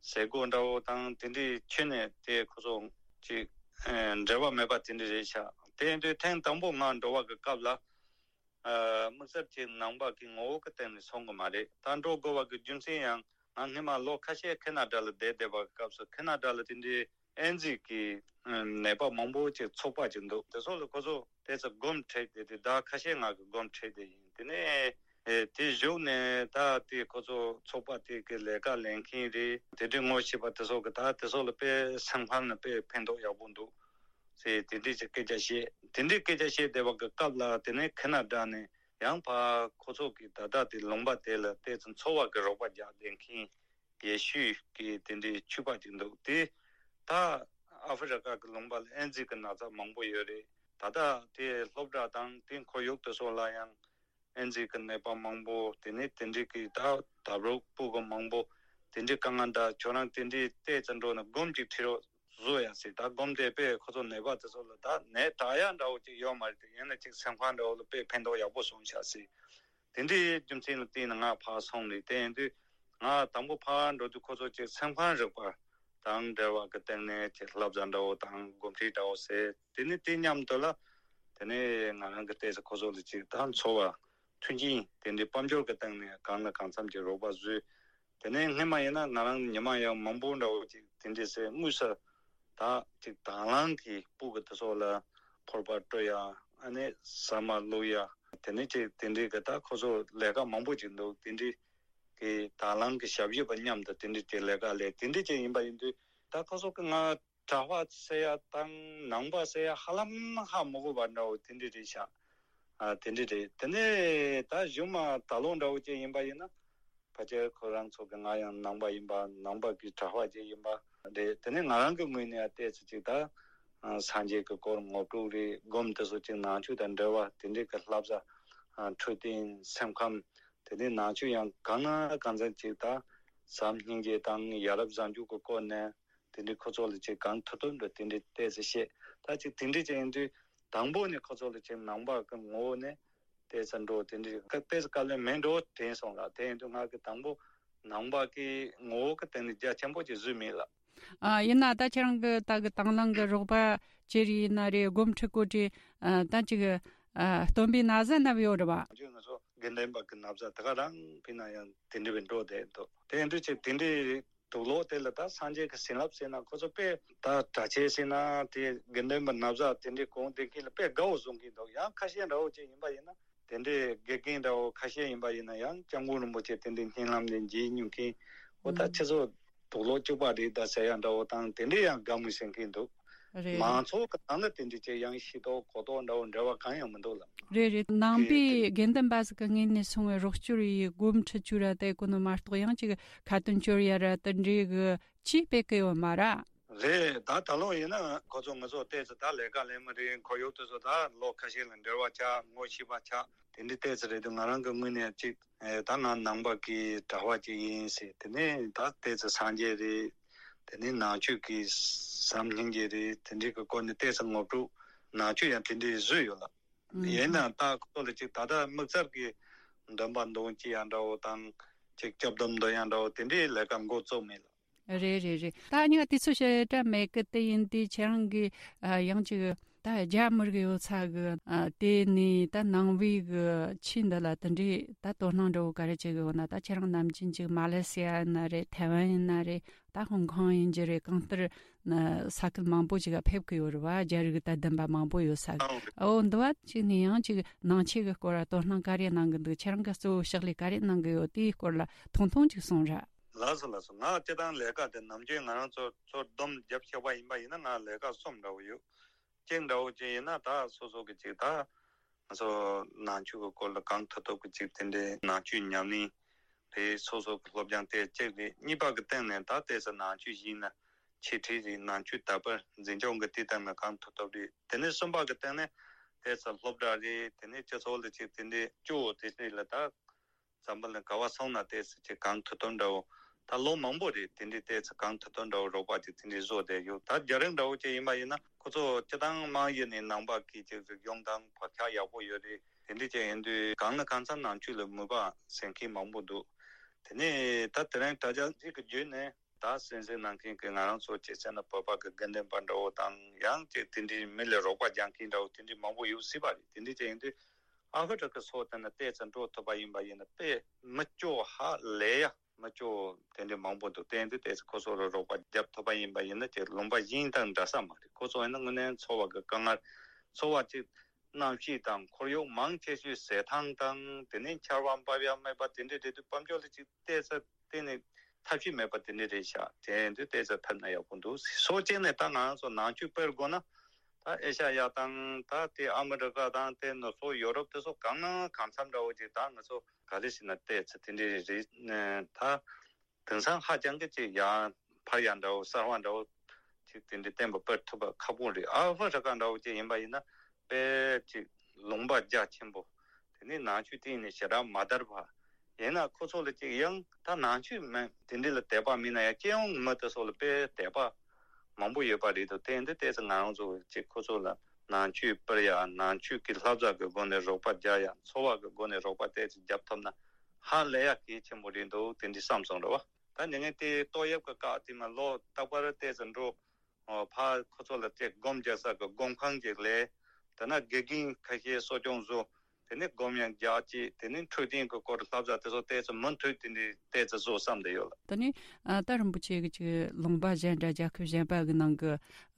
ཟས་གོ་འདྲ་བོ་དང་དེ་འདྲའི་ཁྱོན་ནས་དེ་ཁོ་ཚོ་ཅིག་ཨ་འབྲེལ་བ་མེད་པ་དེ་འདྲ་རེད་ཤག་དེ་ཡིན་དུས་ཐེངས་དང་པོ་ང་འགྲོ་བ་གི་སྐབས་ལ་ཨ་དམིགས་བསལ་གྱི་ནང་པ་གི་ངོ་བོ་གི་སྟེང་ནས་སོང་གི་མ་རེད། ད་འགྲོ་དགོས་པ་གི་རྒྱུ་མཚན་ཡང་ང་སྔོན་མ་ལོ་ཁ་ཤས་ཁེ་ན་ཌ་ལ་བསྡད་བསྡད་པ་གི་སྐབས་སུ་ཁེ་ན་ཌ་ལ་དེ་འདྲའི་ཨེ་ཛི་གི་ནད་པ་མང་པོ་ཅིག་ཚོགས་པ་ཅིག་འདུག་དེ་ཚོ་ལ་ཁོ་ཚོ་དེ་ཚོ་སྒོམ་ཁྲིད་དེ་དེ་ཟླ་ཁ་ཤས་ང་གི་སྒོམ་ཁྲིད་དེ་ཡིན། དེ་ནས་ཨེ་དེ་བཞུགས་ནས་ད་དེ་ཁོ་ཚོ་ཚོགས་པ་དེ་གི་ལས་ཀ་ལས་མཁན་རེད། དེ་འདྲའི་ངོ་ཤེས་པ་དེ་ཚོ་གི་ད་དེ་ཚོ་ལ་དཔེ་སེམས་ཁམས་ལ་དཔེ་ཕན་ཐོགས་ཡག་པོ་འདུག་ཟེར་དེ་འདྲའི་ཅིག་སྐད་ཆ་བཤད། དེ་འདྲའི་སྐད་ཆ་བཤད་བསྡད་པ་གི་སྐབས་ལ་དེ་ནས་ཁེ་ན་ཌ་ནས་ཡང་ཕར་ཁོ་ཚོ་གི་ད་ལྟ་དེ་ལུང་པ་དེ་ལ་ཏོག་ཙམ་འཚོ་བ་གི་རོགས་པ་རྒྱག་བསྡད་མཁན་ཡེ་ཤུ་གི་དེ་འདྲའི་ཆོས་པ་ཅིག་འདུག་དེ་ད་ཨ་ཧྥེ་རི་ཀ་གི་ལུང་པ་ལ་ཨེ་ཛི་གི་ན་ཚ་མང་པོ་ཡོད་རེད། ད་ལྟ་དེ་སློབ་གྲྭ་དང་དེ་ཁོར་ཡུག་དེ་ཚོ་ལ་ཡང་ཨེ་ཛི་གི་ནད་པ་མང་པོ། དེ་ནས་དེ་འདྲའི་གི་ད་ད་རུང་སྤུ་གུ་མང་པོ་དེ་འདྲའི་དཀའ་ངལ་འདྲ། ཁྱོད་རང་དེ་འདྲའི་ཏོག་ཙམ་འགྲོ་ནས་སྒོམ་ཅིག་ཁྲིད་རོགས་བཟོ་ཡ་ཟེར། ད་སྒོམ་དེ་དཔེ་ཁོ་ཚོ་ནད་པ་དེ་ཚོ་ལ་ད་ནད་དྲག་ཡ་འདྲ་བོ་ཅིག་ཡོད་མ་རེད་དེ། ཡིན་ན་ཅིག་སེམས་ཁམས་འདྲ་བོ་ལ་དཔེ་ཕན་ཐོགས་ཡག་པོ་སོང་ཤག་ཟེར། དེ་འདྲའི་རྒྱུ་མཚན་ལ་བརྟེན་ནས་ང་ཕར་སོང་ནས། དེ་ཡིན་དུས་ང་དང་པོ་ཕར་འགྲོ་དུས་ཁོ་ཚོ་ཅིག་སེམས་ཁམས་རིག་པ་དང་འབྲེལ་བ་གི་སྟེང་ནས་ཅིག་བསླབ་བྱ་འདྲ་བོ་དང་སྒོམ་ཁྲིད་འདྲ་བོ་ཟེར། དེ་ནས་དེ་མཉམ་དུ་ལ་དེ་ནས་ང་རང་གི་ཏོག་ཙམ་ཁོ་ཚོ་ལ་ཅིག་ད་འཚོ་བ་མཐུན་རྐྱེན་དེ་འདྲའི་དཔལ་འབྱོར་གྱི་སྟེང་ནས་གང་ལ་གང་འཚམ་གྱི་རོགས་པ་བཟོས། དེ་ནས་སྔོན་མ་ཡིན་ན་ང་རང་ཉི་མ་ཡང་མང་པོ་འདྲ་བོ་ཅིག་དེ་འདྲའི་སེ་དངོས་སུ་ད་ཅིག་དང་བླངས་ཀྱིས་སྤུ་གུ་དེ་ཚོ་ལ་ཕོར་པ་སྤྲོད་ཡ། ཨ་ནི་ཟ་མ་བླུགས་ཡ། དེ་ནས་ཅིག་དེ་འདྲའི་གི་ད་ཁོ་ཚོ་ལས་ཀ་མང་པོ་ཅིག་འདུག་དེ་འདྲའི་གི་དང་བླངས་ཀྱི་ཞབས་ཞུ་བ་མཉམ་དུ་དེ་འདྲའི་ཅིག་ལས་ཀ་ལས། དེ་འདྲའི་ཅིག་ཡིན་པ་ཡིན་དུས་ད་ཁོ་ཚོ་གི་ང་གྲྭ་པ་ཟེར་ཡ་དང་ནང་པ་ཟེར་ཡ་ཧ་ལམ་ཧ་མི་གོ་བ་འདྲ་བོ་དེ་འདྲ་རེད་ཤག་ཨ་དེ་འདྲ་རེད། དེ་ནས་ད་གཞུག་མ་ད་ལོ་འདྲ་བོ་ཅིག་ཡིན་པ་ཡིན་ན་ཕལ་ཆེར་ཁོ་རང་ཚོ་གི་ང་ཡང་ནང་པ་ཡིན་པ། ནང་པ་གི་གྲྭ་པ་ཅིག་ཡིན་པ་རེད། དེ་ནས་ང་རང་གི་ངོས་ནས་ཡང་ཏོག་ཙམ་ཅིག་ད་སངས་རྒྱས་ཀྱི་སྐོར་ངོ་སྤྲོད་རེད། སྒོམ་དེ་ཚོ་ཅིག་ནང་ཆོས་དང་འབྲེལ་བ་དེ་འདྲའི་གི་བསླབ་བྱ། འཕྲོད་བསྟེན། སེམས་ཁམས། དེ་ནས་ནང་ཆོས་ཡང་གང་ན་གང་འཚམ་ཅིག་ད་བྱམས་སྙིང་རྗེ་དང་ཡ་རབས་བཟང་སྤྱོད་ཀྱི་སྐོར་ནས་དེ་འདྲའི་ཁོ་ཚོ་ལ་ཅིག་གང་ཐུབ་ཐུབ་འདྲ་དེ་འདྲའི་ཏོག་ཙམ་བཤད། ད་ཅིག་དེ་འདྲའི་ཅིག་ཡིན་དུས་དང་པོ་ནས་ཁོ་ཚོ་ལ་ཅིག་ནང་པ་གི་ངོ་བོ་ནས་ཏོག་ཙམ་འགྲོ་དེ་འདྲའི་ཏོག་ཙམ་དཀའ་ལས་མེད་འགྲོ་དྲན་སོང་ལ། དེ་ཡིན་དུས་ང་གི་དང་པོ་ནང་པ་གི་ངོ་བོ་གི་སྟེང་ནས་རྒྱ་ཆེན་པོ་ཅིག་བཟོས་མེད་ལ། ཨ་ཡིན་ན་ད་ཁྱེད་རང་གི་ད་གི་དང་བླངས་གི་རོགས་པ་ཅི་རིགས་ཡིན་ན་རེད། སྒོམ་ཁྲིད་སྐོར་གྱི་ཨ་ད་ཅིག་ཨ་སྟོན་པའི་ན་བཟའ་བསྣམས་ཡོད་རེད་བ། ང་ཚོ་དགེ་འདུན་པ་གི་ན་བཟའ་ད་ག་རང་ཕུད་ན་ཡང་དེ་འདྲ་བའི་འགྲོ་བསྡད་འདུག་དེ་ཡིན་དུས་ཅིག་དེ་འདྲའི་དུག་ལོག་དེ་ལ་ད་སངས་རྒྱས་ཀྱི་བྱིན་རླབས་ཟེར་ན་ཁོ་ཚོ་དཔེ་ད་གྲྭ་ཆས་ཟེར་ན་དེ་དགེ་འདུན་པ་ན་བཟའ་དེ་འདྲའི་གོན་བསྡད་མཁན་ལ་དཔེ་དགའ་བོ་བཟོ་གི་འདུག་ཡང་ཁ་ཤས་འདྲ་བོ་ཅིག་ཡིན་པ་ཡིན་ན། དེ་འདྲའི་དགེ་རྒན་འདྲ་བོ་ཁ་ཤས་ཡིན་པ་ཡིན་ན་ཡང་སྐྱབས་མགོན་རིན་པོ་ཆེ་དེ་འདྲའི་བརྙན་ལམ་ནས་མཇལ་མྱོང་མཁན། འོ་ད་ཁྱེད་ཚོ་དུག་ལོག་སྐྱུག་པ་རེད་ད་ཟེར་ཡ་འདྲ་བོ་དང་དེ་འདྲའི་ཡང་དགའ་མོས་བྱེད་མཁན་འདུག་རེད། མང་ཚོགས་ཀྱི་ནང་ལ་དེ་འདྲའི་ཅིག་ཡང་ཤེས་རྟོགས་གོ་རྟོགས་འདྲ་བོ་འབྲེལ་བ་གང་ཡང་མི་འདུག་ལ། རེད་རེད། ནང་པའི་དགེ་འདུན་པ་ཟིག་གི་ངོས་ནས་སོང་བའི་རོགས་སྐྱོར་ཡི་སྒོམ་ཁྲིད་བཅུག་ར་དེ་གོ་ནོ་མ་གཏོགས་ཡང་ཅིག་ཁ་ཏོན་སྐྱོར་ཡ་ར་དེ་འདྲའི་གི་ཅིག་སྤེལ་གི་ཡོད་མ་ར། རེད། ད་ད་ལོ་ཡིན་ན་ཁོ་ཚོ་ང་ཚོ་ཏོག་ཙམ་ད་ལས་ཀ་ལས་མི་རེད། ཁོར་ཡུག་དེ་ཚོ་ད་ལོ་ཁ་ཤས་ལ་འབྲེལ་བ་ཆགས། ངོ་ཤེས་པ་ཆགས། དེ་འདྲ་ཏོག་ཙམ་རེད་འདུག་ང་རང་གི་ངོས་ནས་ཅིག་ཨེ་ད་ང་ནང་པ་གི་གྲྭ་པ་ཅིག་ཡིན་ཟེར། དེ་ནས་ད་ཏོག་ཙམ་སངས་རྒྱས་རེད། དེ་ནས་ནང་ཆོས་ཀྱི་བྱམས་སྙིང་རྗེ་རེད། དེ་འདྲའི་གི་སྐོར་ནས་ཏོག་ཙམ་ངོ་སྤྲོད། ནང་ཆོས་ཡང་དེ་འདྲའི་བཟོས་ཡོད་ལ། ཨུམ། ཡིན་ནའང་ད་ཁོ་ཚོ་ལ་ཅིག་ད་ལྟ་དམིགས་བསལ་གྱི་འདོན་པ་འདོན་ཅི་ཡང་འདྲ་བོ་དང་། ཅིག་སྐྱབས་སྡོམ་འདོན་ཡང་འདྲ་བོ་དེ་འདྲའི་ལས་ཀ་འགོ་བཙུགས་མེད་ལ། རེད་རེད་རེད། ད་ཉི་མ་དུས་ཚོད་ཞེ་དྲག་མེད་གི། དེ་ཡིན་དུས་ཁྱེད་རང་གི་ཨ་ཡང་ཅིག་ ད་རྒྱ་མི་རིགས་ཡོད་ས་གི་ཨ་དེ་ནས་ད་ནང་པའི་གི་ཆོས་འདི་ལ་དེ་འདྲའི་ད་དོ་སྣང་འདྲ་བོ་ག་རེ་བྱེད་གི་ཡོད་ན། ད་ཁྱེད་རང་ནམ་རྒྱུན་ཅིག་མ་ལེ་སི་ཡ་ཡིན་ན་རེད། ཐའེ་ཝན་ཡིན་ན་རེད། ད་ཧོང་ཀོང་ཡིན་གྱི་རེད། གང་ལྟར་ན་ས་ཁུལ་མང་པོ་ཅིག་ལ་ཕེབས་གི་ཡོད་རེད་བ། རྒྱ་རིགས་དད་ལྡན་པ་མང་པོ་ཡོད་ས་གི། ཨོ་འདི་བ་ཅིག་ནས་ཡང་ཅིག་ནང་ཆོས་གི་སྐོར་ལ་དོ་སྣང་ག་རེ་གནང་གི་འདུག་ཁྱེད་རང་གི་གཙོ་བོ་ཕྱག་ལས་ག་རེ་གནང་གི་ཡོད། དེའི་སྐོར་ལ་ཐུང་ཐུང་ཅིག་གསུངས་ར། ལགས་སོ་ལགས་སོ། ང་སྤྱིར་བཏང་ལས་ཀ་དེ་ནམ་རྒྱུན་ང་རང་ཚོ་ཚོ་སྡོམ་རྒྱབ་ཤེས་པ་ཡིན་པ་ཡིན་ན། ང་ལས་ཀ་གསུམ་འདྲ་བོ་ཡོད། གཅིག་འདྲ་བོ་ཅིག་ཡིན་ན་ད་སོ་སོ་གི་ཅིག་ད་ང་ཚོ་ནང་ཆོས་ཀྱི་སྐོར་ལ་གང་ཐུབ་ཐུབ་ཀྱི་ཅིག་དེ་འདྲའི་ནང་ཆོས་ཉམས་ལེན་རེད། སོ་སོ་གི་སློབ་སྦྱོང་དེ་གཅིག་རེད། གཉིས་པ་གི་སྟེང་ནས་ད་ལྟའི་ས་ནང་ཆོས་ཡིན་ན་འཆད་ཁྲིད་རེད། ནང་ཆོས་དར་སྤེལ་འཛིན་སྐྱོང་གི་དེ་སྟེང་ནས་གང་ཐུབ་ཐུབ་རེད། དེ་ནས་གསུམ་པ་གི་སྟེང་ནས་ལྟའི་ས་སློབ་གྲྭ་རེད། དེ་ནས་སྤྱི་ཚོགས་ལ་ཅིག་དེ་འདྲའི་སྐྱོ་བོ་དེ་འདྲའི་ལ་ད་འཛམ་བུ་གླིང་ག་བ་སོང་ན་ལྟའི་ས་ཅིག་གང་ཐུབ་ཐུབ་འདྲ་བོ། ད་ལོ་མང་པོ་རེད། དེ་འདྲའི་ལྟའི་ས་གང་ཐུབ་ཐུབ་འདྲ་བོ་རོགས་པ་ཅིག་དེ་འདྲའི་བཟོ་བསྡད་ཡོད། ད་རྒྱ་རིགས་འདྲ་བོ་ཅིག་ཡིན་པ་ཡིན་ན་ཁོ་ཚོ་སྤྱིར་བཏང་དམངས་ཡུལ་ནས་ནང་པ་གི་ཅིག་རིག་གཞུང་དང་བག་ཆགས་ཡག་པོ་ཡོད་རེད། དེ་འདྲ་ཅིག་ཡིན་དུས་གང་ལ་གང་འཚམ་ནང་ཆོས་ལ་མོས་པ་ཟེར་མཁན་མང་པོ་འདུག་དེ་ནས་ད་དེ་རིང་དྲ་རྒྱ་ཅིག་གི་བརྒྱུད་ནས་ད་གསན་གཟིགས་གནང་མཁན་གྱི་ང་རང་ཚོ་ཅིག་བྱས་ན་བོད་པ་གི་དགེ་འདུན་པ་འདྲ་བོ་དང་། ཡང་ཅིག་དེ་འདྲའི་མི་ལ་རོགས་པ་རྒྱག་མཁན་འདྲ་བོ་དེ་འདྲའི་མང་པོ་ཡོད་སྲིད་པ་རེད། དེ་འདྲ་ཅིག་ཡིན་དུས་ཨ་ཧྥེ་རི་ཁ་སོགས་དེ་ན་ལྟའི་ས་འགྲོ་ཐུབ་པ་ཡིན་པ་ཡིན་ན་དཔེ་མི་སྐྱོ་ཧ་ལས་ཡ། མི་སྐྱོ་དེ་འདྲ་མང་པོ་འདུག་དེ་འདྲ་ལྟའི་ས་ཁོ་ཚོ་ལ་རོགས་པ་རྒྱབ་ཐུབ་པ་ཡིན་པ་ཡིན་ན་ཅིག་ལུང་པ་གཞན་དང་འདྲ་ས་མ་རེད། ཁོ་ཚོ་ཡིན་ན་དངོས་གནས་འཚོ་བ་གི་དཀའ་ངལ། འཚོ་བ་ཅིག་གནམ་གཤིས་དང་ཁོར་ཡུག་མང་ཆེ་ཤོས་ཟས་ཐང་དང་། དེ་ནས་ཆར་པ་འབབ་ཡ་མེད་པ་དེ་འདྲ་རེད་དུས་དཔལ་འབྱོར་ལ་ཅིག་ལྟའི་ས་གཏན་ནས་ཐབས་ཤེས་མེད་པ་དེ་འདྲ་རེད་ཤག་དེ་འདྲ་ལྟའི་ས་ཐབས་ན་ཡག་པོ་འདུག་སོ་སྐྱེས་ནས་ད་ང་རང་ཚོ་ནང་ཆོས་སྤེལ་དགོས་ན། ད་ཨེ་ཤ་ཡ་དང་ད་དེ་ཨ་མི་རི་ཀ་དང་དེ་ནུབ་ཕྱོགས་ཡོ་རོབ་དེ་ཚོ་གང་ན་གང་འཚམ་འདྲ་བོ་ཅིག་ད་ང་ཚོ་ག་རེ་ཟེར་ན་ལྟའི་ས་དེ་འདྲ་རེད། ད་དེང་སང་ཧ་ཅང་གི་ཅིག་ཡང་ཕར་ཡང་འདྲ་བོ་གསར་བ་འདྲ་བོ་ཅིག་དེ་འདྲ་བསྟན་པ་སྤེལ་ཐུབ་པ་ཁག་པོ་རེད། ཨ་ཧྥེ་རི་ཀ་འདྲ་བོ་ཅིག་ཡིན་པ་ཡིན་ན་དཔེ་ཅིག་ལུང་པ་རྒྱ་ཆེན་པོ། དེ་ནས་ནང་ཆོས་གཏན་ནས་ཞེ་དྲག་མ་དར་བ། ཡིན་ན་ཁོ་ཚོ་ལ་ཅིག་ཡང་ད་ནང་ཆོས་མེད་དེ་འདྲ་ལ་དད་པ་མེད་ན་ཡང་སྤྱི་ཡོངས་མི་དེ་ཚོ་ལ་དཔེ་དད་པ་མང་པོ་ཡོད་པ་རེད་འདུག་དེ་འདི་ལྟའི་ས་ང་རང་ཚོ་ཅིག་ཁོ་ཚོ་ལ་ནང་ཆོས་སྤེལ་ཡ། ནང་ཆོས་ཀྱི་བསླབ་བྱ་གི་སྒོ་ནས་རོགས་པ་རྒྱག་ཡ། འཚོ་བ་གི་སྒོ་ནས་རོགས་པ་ལྟའི་ས་རྒྱབ་ཐུབ་ན་ཧ་ལས་ཡ་གལ་ཆེན་པོ་རེད་འདུག་དེ་འདྲ་བསམ་སོང་རེད་བ། ད་ཉིན་ངན་དེ་ཏོག་དབྱིབས་ཀྱི་བཀག་དེ་མ་ལོ་རྟག་པར་ལྟའི་ས་འགྲོ། ཨོ་ཕ་ཁོ་ཚོ་ལ་ཅིག་སྒོམ་རྒྱག་ས་གི་སྒོམ་ཁང་ཅིག་ལས། དེ་ན་དགེ་རྒན་ཁ་ཤས་གསོ་སྐྱོང་བཟོ། དེ་ནས་སྒོམ་ཡང་རྒྱག་ཅིག་དེ་ནས་འཕྲོད་བསྟེན་གི་སྐོར་བསླབ་བྱ་དེ་ཚོ་ལྟའི་ས་མུ་མཐུད་དེ་འདྲའི་ལྟའི་ས་བཟོ་བསམ་བསྡད་ཡོད་ལ། ད་ནི་ཨ་ད་རིན་པོ་ཆེ་གི་ཅིག་ལུང་པ་གཞན་དང་རྒྱལ་ཁབ་གཞན་པ་གི་ནང་གི་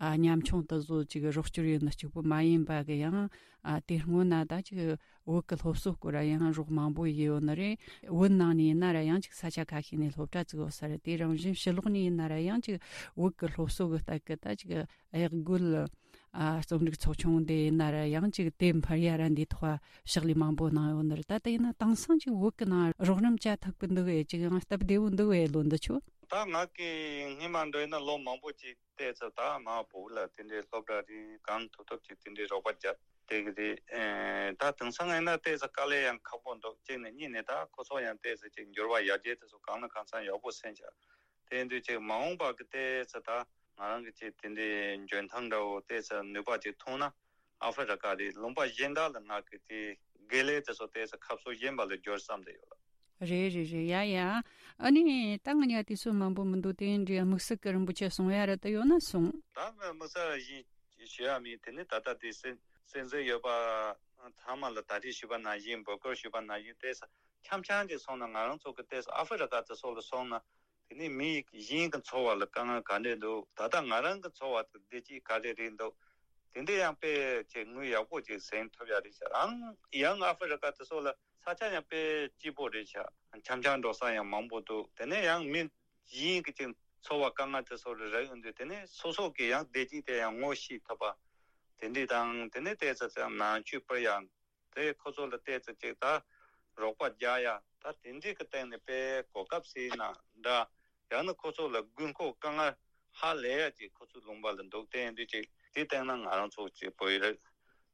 ཨ་ཉམ་ཆུང་དེ་ཚོ་ཅིག་རོགས་སྐྱོར་ཡོད་ན་གཅིག་པུ་མ་ཡིན་པ་གི་ཡང་ཨ་དེ་སྔོན་ན་ད་ཅིག་བོད་ཀྱི་སློབ་གསོ་སྐོར་ཡང་རོགས་མང་པོ་ཡོད་ནི་རེད། བོད་ནང་ནས་ཡིན་ན་ར་ཡང་ཅིག་ས་ཆ་ཁ་ཤས་ནས་སློབ་གྲྭ་བཙུགས་ཡོད་ས་རེད། དེ་རང་བཞིན་ཕྱི་ལོགས་ནས་ཡིན་ན་ར་ཡང་ཅིག་བོད་ཀྱི་སློབ་གསོ་གི་ལྟ་གི་ད་ཅིག་གཡག་རྒོད་ཨ་རྩོམ་རིག་ཚོགས་ཆུང་དེ་ཡིན་ན་ར་ཡང་ཅིག་དེ་འཕར་ཡ་ར་འདི་ཐོག་ཕྱག་ལས་མང་པོ་གནང་ཡོད་ནི་རེད། ད་ལྟ་ཡིན་ན་དེང་སང་ཅིག་བོད་ཀྱི་ནང་རོགས་རམ་བྱ་ཐུབ་གི་འདུག་ཨེ། ཅིག་ཡང་སྟབས་བདེ་བོ་འདུག་ཨེ། ལོ་འདི་ཆོ། ད་ང་གི་སྔོན་མ་འདྲ་ཡིན་ན་ལོ་མང་པོ་ཅིག་ལྟའི་ས་ད་མ་བོད་ལ་དེ་འདྲའི་སློབ་གྲྭ་རེད། གང་ཐུབ་ཐུབ་ཅིག་དེ་འདྲའི་རོགས་པ་རྒྱབ་བསྡད་གི་རེད། ཨེ་ད་དེང་སང་ཡིན་ན་ལྟའི་ས་དཀའ་ལས་ཡང་ཁག་པོ་འདུག་གཅིག་ནས་གཉིས་ནས་ད་ཁོ་ཚོ་ཡང་ལྟའི་ས་ཅིག་འགྱུར་བ་ཡར་རྒྱས་དེ་ཚོ་གང་ལ་གང་འཚམ་ཡག་པོ་སེམས་ཤག་དེ་ཡིན་དུས་ཅིག་མ་འོངས་པ་གི་ལྟའི་ས་ད་ང་རང་གི་ཅིག་དེ་འདྲའི་འཇོན་ཐང་འདྲ་བོ་ལྟའི་ས་ནུས་པ་ཅིག་ཐོན་ན་ཨ་ཧྥེ་རི་ཀ་རེད། ལུང་པ་གཞན་དག་ལ་ང་གི་དེ་དགེ་ལས་དེ་ཚོ་ལྟའི་ས་ཁ་ཕྱོགས་གཞན་པ་ལ་འགྱུར་བསམ་བསྡད་ཡོད་ལ། རེད་རེད་རེད། ཡ་ཡ། ཨ་ནི་ད་ང་ཉ་དུས་ཚོད་མང་པོ་མི་འདུག་དེ་འདྲའི་དམིགས་བསལ་གི་རིན་པོ་ཆེ་གསུང་ཡ་ར་ད་ཡོད་ན་གསུང་། ད་དམིགས་བསལ་ཞིག་ཞུ་ཡ་མེད། དེ་ནི་ད་ལྟ་དེ་གསན་གསན་གཟིགས་ཡོད་པ་ཚང་མ་ལ་ད་རེས་ཞུས་པ་ནང་བཞིན་འབོད་སྐུལ་ཞུས་པ་ནང་བཞིན་ལྟའི་ས་འཆམ་འཆམ་ཅིག་སོང་ན་ང་རང་ཚོ་གི་ལྟའི་ས་ཨ་ཧྥེ་རི་ཀ་དེ་སོགས་ལ་སོང་ན། དེ་ནས་མི་གཞན་གྱི་འཚོ་བ་ལ་དཀའ་ངལ་ག་འདྲས་འདུག་ད་ལྟ་ང་རང་གི་འཚོ་བ་དེ་བདེ་སྐྱིད་ག་རེ་རེད་འདུག་དེ་འདྲས་ཡང་དཔེ་ཅིག་དངུལ་ཡག་པོ་ཅིག་ཟིན་ཐུབ་ཡ་རེད་ཤག་ཨང་ཡང་ཨ་ཧྥེ་རི་ཀ་དེ་ཚོ་ལ་ས་ཆ་ཡང་དཔེ་སྐྱིད་པོ་རེད་ཤག་འཆམ་འཆམ་འགྲོ་ས་ཡང་མང་པོ་འདུག་དེ་ནས་ཡང་མི་གཞན་གྱི་ཅིག་འཚོ་བ་དཀའ་ངལ་དེ་ཚོ་ལ་རག་ཡོང་དུས་དེ་ནས་སོ་སོ་གི་ཡང་བདེ་སྐྱིད་དེ་ཡང་ངོ་ཤེས་ཐུབ་པ་དེ་འདྲས་དང་། དེ་ནས་ལྟའི་ས་ཡང་ནང་ཆོས་སྤེལ་ཡ། དེ་ཁོ་ཚོ་ལ་བལྟས་ཚེ་ཅིག་ད་རོགས་པ་རྒྱག་ཡ་ད་དེ་འདྲའི་གི་སྟེང་ནས་དཔེ་གོ་སྐབས་ཟེར་ན་འདྲ། ཡང་ན་ཁོ་ཚོ་ལ་དགོས་མཁོ་དཀའ་ངལ་ཧ་ལས་ཡ་ཅིག་ཁོ་ཚོའི་ལུང་པ་ལ་འདུག་དེ་ཡིན་དུས་ཅིག་དེ་སྟེང་ན་ང་རང་ཚོ་ཅིག་བོད་ཡིག་རེད།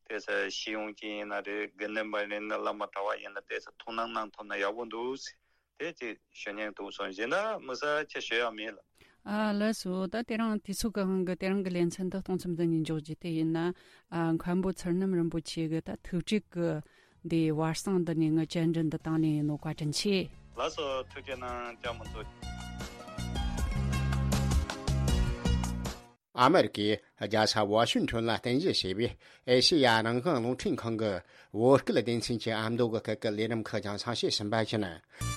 དེ་ས་ཤེས་ཡོན་ཅན་ཡིན་ན་རེད། དགེ་འདུན་པ་ཡིན་ན་བླ་མ་གྲྭ་བ་ཡིན་ན་དེ་ས་ཐུགས་སྣང་གནང་ཐུབ་ན་ཡག་པོ་འདུག་ཟེར། དེ་ཅིག་ཞུ་སྙིང་འདུག་སོང་། གཞན་དག་དམིགས་བསལ་ཅིག་ཞུ་ཡ་མེད་ལ། ཨ་ལགས་སོ། ད་དེ་རིང་དུས་ཚོད་ཀྱི་དབང་གིས་དེ་རིང་གི་ལེ་ཚན་འདི་གཏོང་མཚམས་འདི་ནས་འཇོག་རྒྱུ་དེ་ཡིན་ན། ཨ་མཁན་པོ་ཚུལ་རྣམ་རིན་པོ་ཆེ་གི་ད་ཐུགས་དྲུག་གི་འདི་བར་གསེང་འདི་ནས་ངའི་བཅར་འདྲི་འདི་བཏང་ནས་ཡིན་ནོ། བཀའ་དྲིན་ཆེ། ལགས་སོ། ཐུགས་རྗེ་གནང་། བཅར་མ་མཛད། ཨ་མེ་རི་ཀའི་རྒྱལ་ས་ཝ་ཤིང་ཊོན་ལ་རྟེན་གཞི་བྱས་པའི་ཨེ་ཤེ་ཡ་རང་དབང་རླུང་འཕྲིན་ཁང་གི་བོད་སྐད་སྡེ་ཚན་གྱི་ཨ་མདོ་གི་སྐད་ཀྱི་ལས་རིམ་ཁག་ཀྱང་གསན་བཤད་ཟིན་པ་ཡིན།